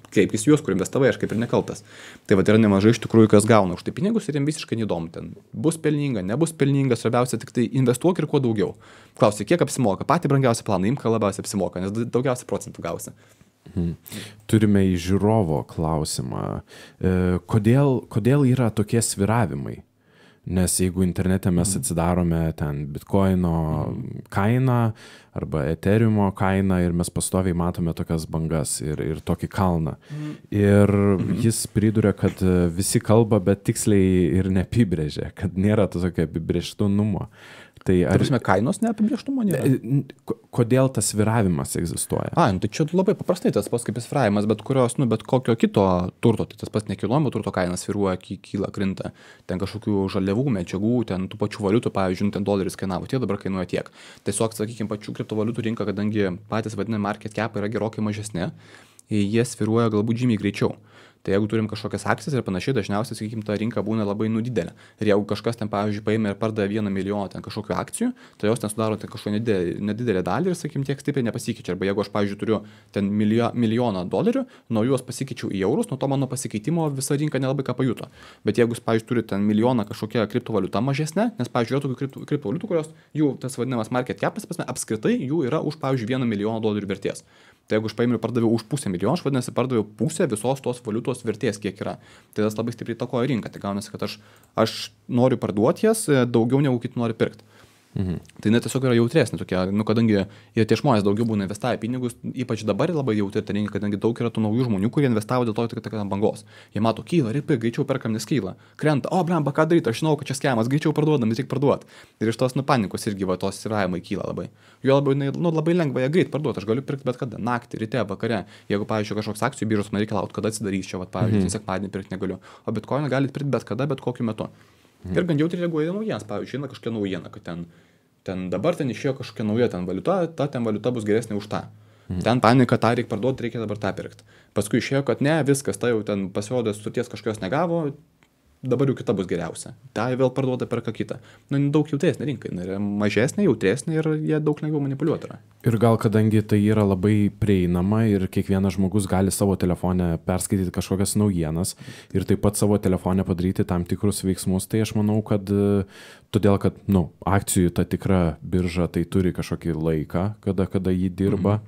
kreipkis juos, kur investavai, aš kaip ir nekaltas. Tai va, yra nemažai iš tikrųjų, kas gauna už tai pinigus ir jiems visiškai neįdomu, ten bus pelninga, nebus pelninga, svarbiausia tik tai investuok ir kuo daugiau. Klausia, kiek apsimoka, patį brangiausią planą, imk, ką labiausiai apsimoka, nes daugiausiai procentų gausi. Turime į žiūrovo klausimą. Kodėl yra tokie svyravimai? Nes jeigu internete mes atsidarome ten bitkoino kainą arba eteriumo kainą ir mes pastoviai matome tokias bangas ir tokį kalną. Ir jis priduria, kad visi kalba, bet tiksliai ir neapibrėžia, kad nėra to tokio apibrėžtumo. Tai kainos neapibrėžtumo nėra? Kodėl tas sviravimas egzistuoja? Tai čia labai paprastai tas pats kaip sviravimas, bet kokio kito turto, tai tas pats nekilnojamo turto kainas sviruoja, kyla, krinta, ten kažkokių žaliavų, medžiagų, ten tų pačių valiutų, pavyzdžiui, ten doleris kainavo, tie dabar kainuoja tiek. Tiesiog, sakykime, pačių kriptovaliutų rinka, kadangi patys vadinami market cap yra gerokai mažesni, jie sviruoja galbūt žymiai greičiau. Tai jeigu turim kažkokias akcijas ir panašiai, dažniausiai, sakykime, ta rinka būna labai didelė. Ir jeigu kažkas ten, pavyzdžiui, paėmė ir pardavė 1 milijoną ten kažkokių akcijų, tai jos ten sudaro ten kažkokią nedidelę dalį ir, sakykime, tiek stipriai nepasikeičia. Arba jeigu aš, pavyzdžiui, turiu ten milijoną dolerių, nuo juos pasikeičiau į eurus, nuo to mano pasikeitimo visa rinka nelabai ką pajuto. Bet jeigu, pavyzdžiui, turi ten milijoną kažkokią kriptovaliutą mažesnę, nes, pavyzdžiui, yra tokių kriptovaliutų, kurios jų tas vadinamas market capas, apskritai jų yra už, pavyzdžiui, 1 milijoną dolerių vertės. Tai jeigu aš paėmiau ir pardaviau už 500 000, aš vadinasi pardaviau pusę visos tos valiutos vertės, kiek yra. Tai tas labai stipriai įtakoja rinką. Tai gaunasi, kad aš noriu parduoti jas daugiau negu kiti nori pirkti. Tai net tiesiog yra jautresnė tokia, kadangi ir tie žmonės daugiau būna investavę pinigus, ypač dabar labai jautri ta rinka, kadangi daug yra tų naujų žmonių, kurie investavo dėl to, kad ant bangos. Jie mato, kyla, ripai, greičiau perkam, nes kyla, krenta, blemba, ką daryti, aš žinau, kad čia skemas, greičiau parduodam, tik parduot. Ir iš tos panikos irgi tos svyravimai kyla labai. Jo labai lengva ją greit parduoti, aš galiu pirkti bet kada, naktį, ryte, vakare. Jeigu, pavyzdžiui, kažkoks akcijų biržos man reikia laukti, kada atsidarys čia, pavyzdžiui, sekmadienį pirkti negaliu. O bitkoiną galite pirkti bet kada, bet kokiu metu. Ir gan jautriai reaguoja naujienas, pavyzdžiui, kažkokia naujiena, kad ten dabar ten išėjo kažkokia nauja ten valiuta, ten valiuta bus geresnė už tą. Ten panika, tą reikia parduoti, reikia dabar tą pirkti. Paskui išėjo, kad ne, viskas, tai jau ten pasirodė, sutarties kažkokios negavo, dabar jau kita bus geriausia. Tai vėl parduoda perka kitą. Daug jautresnė rinka, yra mažesnė, jautresnė ir jie daug lengviau manipuliuoti yra. Ir gal kadangi tai yra labai prieinama ir kiekvienas žmogus gali savo telefone perskaityti kažkokias naujienas ir taip pat savo telefone padaryti tam tikrus veiksmus, tai aš manau, kad todėl, kad akcijų ta tikra birža tai turi kažkokį laiką, kada jį dirba,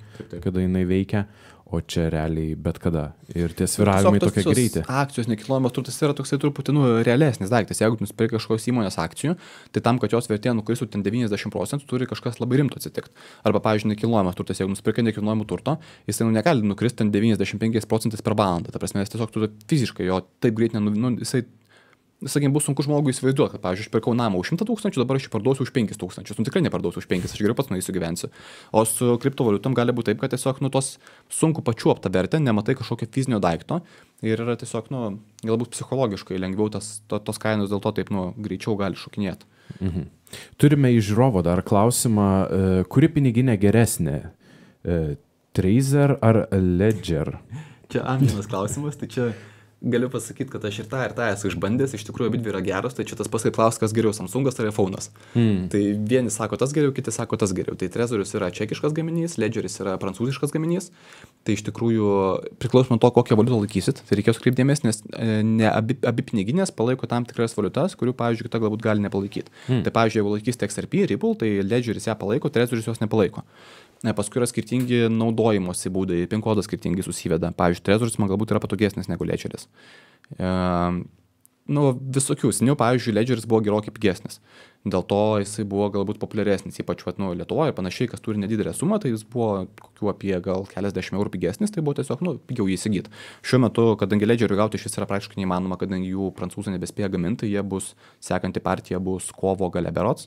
kada jinai veikia. O čia realiai bet kada. Ir tie svyravimai tokie greiti. Akcijos nekilnojamas turtas yra toksai truputį realesnis daiktas. Jeigu nusipirki kažkokios įmonės akcijų, tai tam, kad jos vertė nukristų ten 90%, turi kažkas labai rimto atsitikti. Arba, pavyzdžiui, nekilnojamas turtas, jeigu nusipirki nekilnojamų turto, jisai negali nukristi ten 95% per valandą. Ta prasme, jis tiesiog turi fiziškai jo taip greit jisai, sakykime, bus sunku žmogui įsivaizduoti, kad, pavyzdžiui, aš pirkau namą už 100 000, dabar aš jį parduosiu už 5 000. Tikrai neparduosiu už 5, aš geriau pats nueisiu gyvensiu. O su kriptovaliutom gali būti taip, kad tiesiog tos sunku pačiuoptą vertę, nematai kažkokio fizinio daikto ir yra tiesiog, galbūt psichologiškai lengviau tos kainos dėl to taip, greičiau gali šokinėti. Turime iš žiūrovo dar klausimą, kuri piniginė geresnė? Trezor ar Ledger? Čia amžinas klausimas, tai čia galiu pasakyti, kad aš ir tą esu išbandęs, iš tikrųjų abidvi yra geros, tai čia tas pats kaip klaus, kas geriau, Samsungas ar iPhone'as. Tai vieni sako tas geriau, kiti sako tas geriau. Tai Trezorius yra čekiškas gaminys, Ledgeris yra prancūziškas gaminys. Tai iš tikrųjų priklauso nuo to, kokią valiutą laikysit. Tai reikės kreipti dėmesį, nes ne abi piniginės palaiko tam tikras valiutas, kurių, pavyzdžiui, kita galbūt gali nepalaikyti. Tai, pavyzdžiui, jeigu laikysite XRP, Ripple, tai Ledgeris ją palaiko, Trezorius jos nepalaiko. Paskui yra skirtingi naudojimosi būdai, PIN kodas skirtingai susiveda. Pavyzdžiui, Trezorius man galbūt yra patogesnis negu Ledgeris. Visokių. Seniau, pavyzdžiui, Ledgeris buvo gerokai pigesnis. Dėl to jisai buvo galbūt populiaresnis, ypač Lietuvoje ir panašiai, kas turi nedidelę sumą, tai jis buvo kokiu apie gal keliasdešimt eurų pigesnis, tai buvo tiesiog, pigiau jį įsigyti. Šiuo metu, kadangi Ledgerių gauti šis yra praktiškai neįmanoma, kadangi jų prancūzai nebespėja gaminti, jie bus, sekanti partija bus kovo gale berods.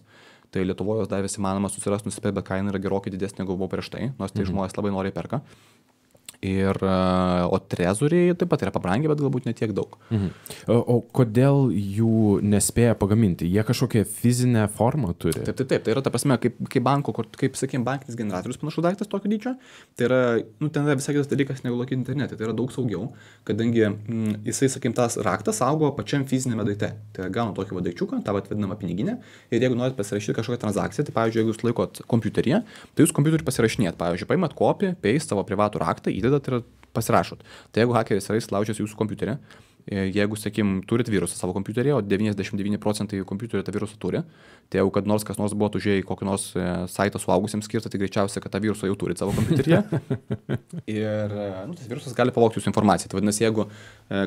Tai Lietuvoje dar vis įmanoma susirasti, nusipirkti, bet kaina yra gerokai didesnė, negu buvo prieš tai, nors tai žmonės labai noriai perka. O trezoriai taip pat yra pabrangę, bet galbūt ne tiek daug. O kodėl jų nespėja pagaminti? Jie kažkokią fizinę formą turi? Taip. Tai yra ta prasme, kaip banko, kaip sakykime, bankinis generatorius panašus daiktas tokio dydžio. Tai yra, ten yra visai kitas dalykas negu lokyti internete. Tai yra daug saugiau, kadangi jisai, sakykime, tas raktas saugo pačiam fizinėme daikte. Tai yra gauna tokį daikčiuką, tą vadinamą piniginę. Ir jeigu norit pasirašyti kažkokią transakciją, tai pavyzdžiui, jeigu jūs laikot kompiuteryje, tai jūs kompiuterį pasirašinėt. Pavyzdžiui, paimat copy, paste savo privatų raktą, įdedat ir pasirašot. Tai jeigu hakeris yra įsilaužęs jūsų kompiuterį, jeigu, sakykim, turit virusą savo kompiuterį, o 99% kompiuterio tą virusą turi, tai jeigu kad nors kas nors buvo užėję į kokį nors saitą suaugusiems skirtą, tai greičiausiai, kad tą virusą jau turit savo kompiuteryje. Ir tas virusas gali pavogti jūsų informaciją. Tai vadinasi, jeigu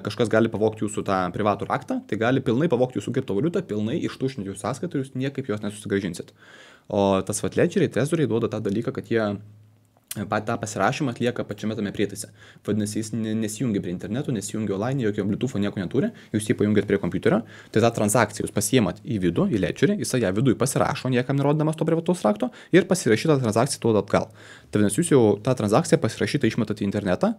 kažkas gali pavogti jūsų tą privatų raktą, tai gali pilnai pavogti jūsų kriptovaliutą, pilnai ištuštinti jūsų sąskaitą ir jūs niekaip jos nesusigrąžinsit. O tas ledgeriai, trezoriai duoda tą dalyką, kad jie tą pasirašymą atlieka pačiame tame prietaise. Vadinasi, jis nesijungia prie interneto, nesijungia online, jokio Bluetooth'o nieko neturi, jūs jį pajungiat prie kompiuterio, tai tą transakciją jūs pasiemat į vidų, į ledgerį, jisai ją viduje pasirašo, niekam nerodamas to privataus rakto ir pasirašytą transakciją duoda atgal. Tai vadinasi, jūs jau tą transakciją pasirašytą išmetat į internetą,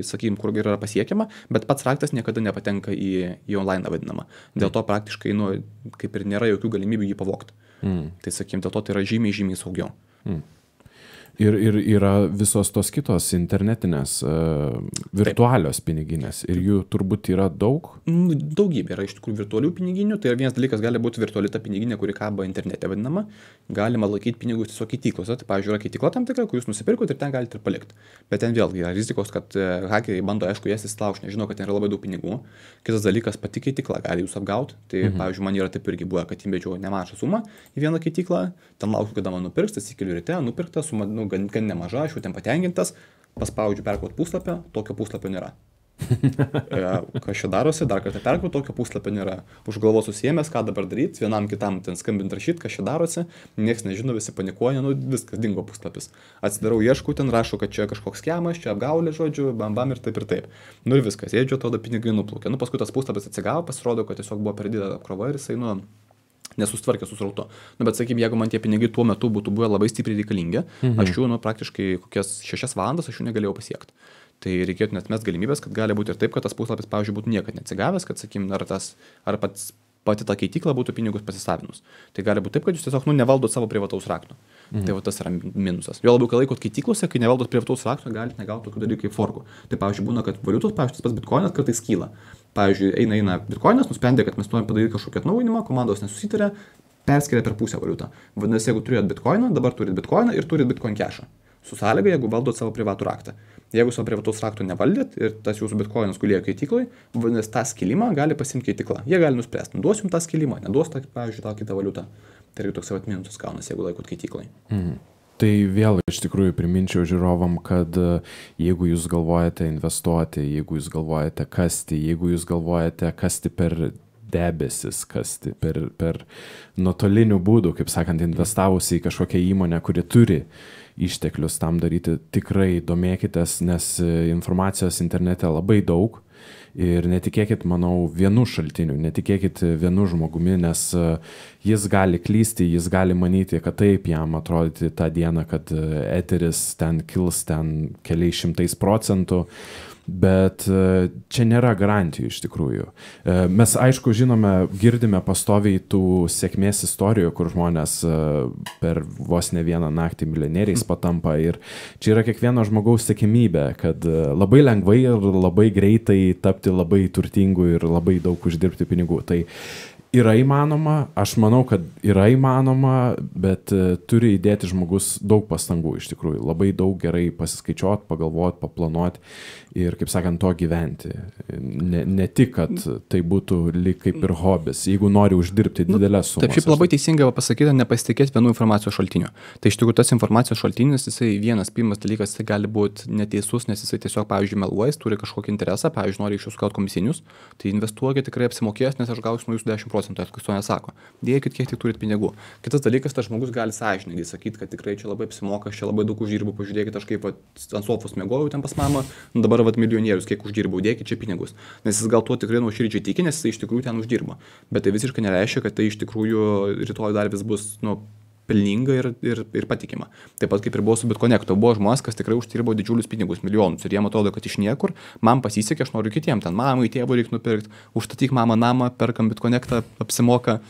sakykim, kur yra pasiekiama, bet pats raktas niekada nepatenka į online vadinamą. Dėl to praktiškai, kaip ir nėra jokių galimybių jį pavogti. Tai sakykim, dėl to tai yra žymiai saugiau. Ir yra visos tos kitos internetinės, virtualios piniginės. Ir jų turbūt yra daug? Daugybė yra iš tikrųjų virtualių piniginių. Tai vienas dalykas gali būti virtuali ta piniginė, kuri kaba internete vadinama. Galima laikyti pinigus tiesiog keityklose. Tai, pavyzdžiui, yra keitykla tam tikra, kur jūs nusipirkote ir ten galite ir palikti. Bet ten vėlgi yra rizikos, kad hakeriai bando, aišku, jas įsilaužti, nežino, kad ten yra labai daug pinigų. Kitas dalykas, pati keitykla gali jūs apgauti. Tai, pavyzdžiui, man yra taip irgi buvo, kad įmedžiau nemažą sumą į vieną keityklą, ten laukiu, kada man nupirks, atsikeliu ryte, nupirkta suma, gan nemaža, aš jau ten patenkintas, paspaudžiu perkraut puslapį, tokio puslapio nėra. Kas čia darosi, dar kartą perkraut, tokio puslapio nėra. Už galvos susiėmęs, ką dabar daryti, vienam kitam ten skambint rašyti, kas čia darosi, nieks nežino, visi panikuoja, viskas dingo puslapis. Atsidarau, ieškau, ten rašo, kad čia kažkoks skemas, čia apgaulė, žodžiu, bam ir taip. Ir viskas, sėdžiu, tada pinigai nuplaukė. Paskui tas puslapis atsigavo, pasirodo, kad tiesiog buvo per didelė apkrova ir jisai, nesustvarkė su srautu. Bet sakykime, jeigu man tie pinigai tuo metu būtų buvę labai stipriai reikalingi, aš jų, praktiškai kokias 6 valandas aš jų negalėjau pasiekti. Tai reikėtų net mes galimybės, kad gali būti ir taip, kad tas puslapis, pavyzdžiui, būtų niekad neatsigavęs, kad, sakykime, ar pati ta keitykla būtų pinigus pasisavinus. Tai gali būti taip, kad jūs tiesiog nevaldot savo privataus rakto. Tai tas yra minusas. Jo labiau, kai laikot keityklose, kai nevaldot privataus rakto, galite negauti tokių dalykų kaip forkų. Tai, pavyzdžiui, būna, kad valiutos, pavyzdžiui, tas pats bitkoinas kartais kyla. Pavyzdžiui, eina bitkoinas, nusprendė, kad mes norime padaryti kažkokį atnaujinimą, komandos nesusitarė, perskiria per pusę valiutą. Vadinasi, jeigu turėjot bitkoiną, dabar turit bitkoiną ir turit bitcoin cashą. Su sąlyga, jeigu valdot savo privatų raktą. Jeigu savo privataus rakto nevaldėt ir tas jūsų bitkoinas gulėjo keityklai, vadinasi, tą skilimą gali pasimti keitykla. Jie gali nuspręsti, duos jums tą skilimą, neduos, pavyzdžiui, tą kitą valiutą. Tai irgi toks minusas gaunasi, jeigu laikot keityklai. Tai vėl iš tikrųjų priminčiau žiūrovam, kad jeigu jūs galvojate investuoti, jeigu jūs galvojate kasti, jeigu jūs galvojate kasti per debesis, kasti per nuotolinių būdų, kaip sakant, investavus į kažkokią įmonę, kuri turi išteklius tam daryti, tikrai domėkitės, nes informacijos internete labai daug. Ir netikėkit, manau, vienu šaltiniu, netikėkit vienu žmogumi, nes jis gali klysti, jis gali manyti, kad taip jam atrodyti tą dieną, kad eteris ten kils ten keliais 100%, bet čia nėra garantijų iš tikrųjų. Mes, aišku, žinome, girdime pastoviai tų sėkmės istorijų, kur žmonės per vos ne vieną naktį milijonieriais patampa ir čia yra kiekvieno žmogaus siekiamybė, kad labai lengvai ir labai greitai tapti labai turtingu ir labai daug uždirbti pinigų. Tai yra įmanoma, aš manau, kad yra įmanoma, bet turi įdėti žmogus daug pastangų iš tikrųjų. Labai daug gerai pasiskaičiuoti, pagalvoti, paplanuoti ir, kaip sakant, to gyventi. Ne tik, kad tai būtų lyg kaip ir hobis, jeigu nori uždirbti didelės sumas. Taip, šiaip labai teisingai pasakyti, nepasitikėti vienu informacijos šaltiniu. Tai iš tikrųjų tas informacijos šaltinis, jisai pirmas dalykas, jisai gali būti neteisus, nes jisai tiesiog, pavyzdžiui, meluojas, turi kažkokį interesą, pavyzdžiui, nori iš jūsų gauti komisinius, tai investuokit, tikrai apsimokės, nes aš gausiu nuo jūsų 10%, kas to nesako. Dėkit, kiek tik turit pinigų. Kitas dalykas, tas žmogus gali sąžiningai sakyti, kad tikrai čia labai apsimoka, aš čia labai daug uždirbu, pažiūrėkit, aš kaip ant sofos miegojau ten pas mamą, dabar milijonierius, kiek uždirbau, dėkit čia pinigus. Nes jis gal tuo tikrai nuoširdžiai tiki, nes jis iš tikrųjų ten uždirba. Bet tai visiškai nereiškia, kad tai iš tikrųjų rytoj dar vis bus, pelninga ir patikima. Taip pat kaip ir buvo su BitConnectu, buvo žmonės, kas tikrai uždirbo didžiulius pinigus, milijonus ir jiem atrodo, kad iš niekur, man pasisekė, aš noriu kitiem, ten mamai, tėvui reikia nupirkti, užstatyk mamą namą, perkam BitConnectą, apsimoka.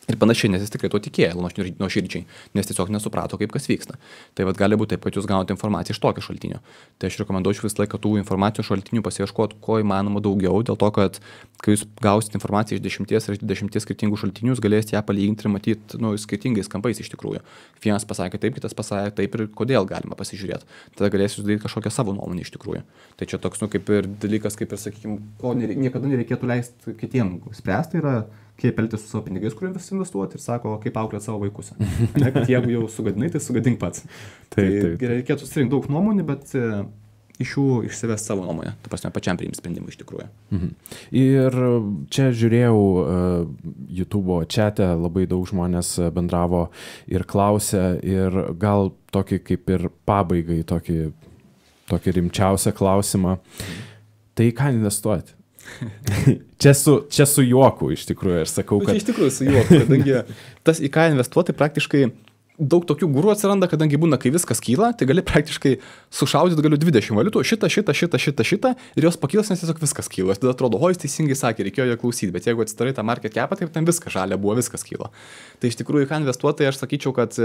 Ir panašiai, nes jis tikrai to tikėjo nuoširdžiai, nes tiesiog nesuprato, kaip kas vyksta. Tai vat gali būti taip, kad jūs gaunate informaciją iš tokio šaltinio. Tai aš rekomenduočiau visą laiką tų informacijos šaltinių pasiieškoti, ko įmanoma daugiau, dėl to, kad kai jūs gausite informaciją iš 10 ar 20 skirtingų šaltinių, jūs galėsite ją palyginti ir matyti skirtingais kampais iš tikrųjų. Vienas pasakė taip, kitas pasakė taip ir kodėl galima pasižiūrėti. Tada galėsite sudaryti kažkokią savo nuomonę iš tikrųjų. Tai čia toks, kaip ir dalykas, kaip ir, sakykime, ko niekada nereikėtų leisti kitiem spręsti, yra kaip elgtis su savo pinigais, kuriuos investuoti ir sako, kaip auklėti savo vaikus. Kad jeigu jau sugadinai, tai sugadink pats. Taip. Reikėtų susirinkti daug nuomonių, bet iš jų išsivesti savo nuomonę. Ta prasme, pačiam priimti sprendimą iš tikrųjų. Ir čia žiūrėjau YouTube'o chat'e, labai daug žmonės bendravo ir klausė, ir gal tokį kaip ir pabaigai, tokį rimčiausią klausimą. Tai ką investuoti? Čia su juoku iš tikrųjų, aš sakau, kad... Iš tikrųjų su juoku, kadangi tas į ką investuoti praktiškai daug tokių gurų atsiranda, kadangi būna, kai viskas kyla, tai gali praktiškai sušaudyti galiu 20 valiutų, šitą ir jos pakylas, nes tiesiog viskas kyla. Tada atrodo, o jis teisingai sakė, reikėjo jo klausyti, bet jeigu atsidarai tą market capą, tai ten viskas žalia buvo, viskas kyla. Tai iš tikrųjų, ką investuoti, tai aš sakyčiau, kad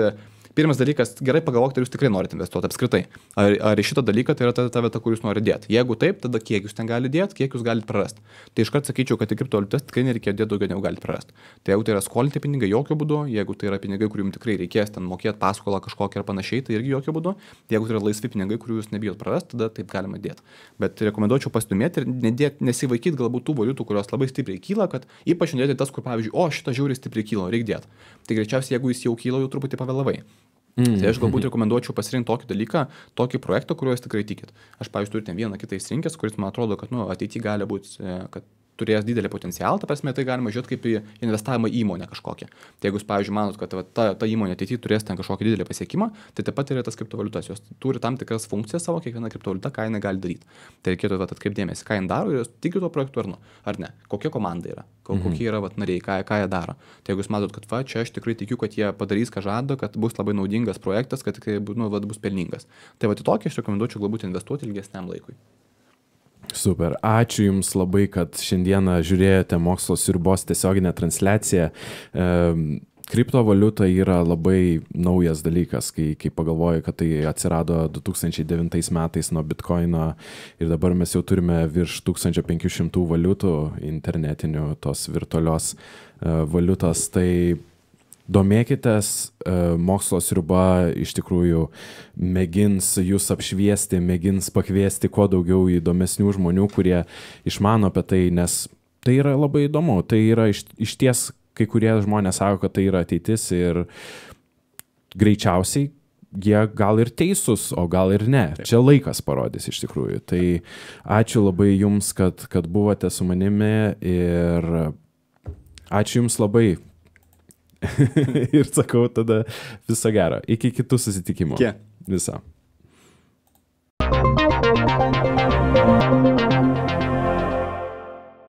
pirmas dalykas, gerai pagalvokite, ar jūs tikrai norite investuoti apskritai. Ar į šitą dalyką tai yra ta vieta, kur jūs norite dėti. Jeigu taip, tada kiek jūs ten galite dėti, kiek jūs galite prarasti. Tai iškart sakyčiau, kad į kriptovaliutas tikrai nereikia dėti daugiau negu galite prarasti. Tai jeigu tai yra skolinti pinigai, jokių būdų, jeigu tai yra pinigai, kurių jums tikrai reikės ten mokėti paskolą kažkokią ar panašiai, tai irgi jokių būdų. Jeigu tai yra laisvi pinigai, kurių jūs nebijot prarasti, tada taip galima dėti. Bet rekomenduočiau pasidomėti ir nesivaikyti galbūt tų valiutų, kurios labai stipriai kyla, kad ypač nedėti tas, kur pavyzdžiui, o šitą žiauriai stipriai kyla, reikia dėti. Tai greičiausiai, jeigu jis jau kyla, jau truputį pavėlavai. Tai aš galbūt rekomenduočiau pasirinkti tokį dalyką, tokį projektą, kuriuo jūs tikrai tikit. Aš, pavyzdžiui, turiu ten vieną kitą įsirinkęs, kuris man atrodo, kad ateityje gali būti, kad turės didelį potencialą, ta prasme, tai galima žiūrėti kaip į investavimą į įmonę kažkokią. Tai jeigu jūs, pavyzdžiui, manot, kad ta įmonė ateityje turės ten kažkokį didelį pasiekimą, tai taip pat yra tas kriptovaliutas, jos turi tam tikras funkcijas savo, kiekviena kriptovaliuta, ką jinai gali daryti. Tai reikėtų atkreipdėmėsi, ką jin daro ir jūs tikite tuo projektu ar ne, kokia komanda yra, kokie yra nariai, ką jie daro. Tai jeigu jūs matot, kad čia aš tikrai tikiu, kad jie padarys, ką žada, kad bus labai naudingas projektas, kad tikrai bus pelningas. Tai į tokį aš rekomenduočiau galbūt investuoti ilgesniam laikui. Super, ačiū Jums labai, kad šiandieną žiūrėjote Mokslo sriubos tiesioginę transliaciją. Kriptovaliuta yra labai naujas dalykas, kai pagalvoju, kad tai atsirado 2009 metais nuo Bitcoino ir dabar mes jau turime virš 1500 valiutų internetinių tos virtualios valiutos. Tai domėkitės, Mokslo sriuba iš tikrųjų mėgins jūs apšviesti, mėgins pakviesti kuo daugiau įdomesnių žmonių, kurie išmano apie tai, nes tai yra labai įdomu. Tai yra iš ties, kai kurie žmonės sako, kad tai yra ateitis ir greičiausiai jie gal ir teisūs, o gal ir ne. Taip. Čia laikas parodys iš tikrųjų. Tai ačiū labai Jums, kad buvote su manimi ir ačiū Jums labai. Ir sakau tada viso gero. Iki kitų susitikimų. Viso.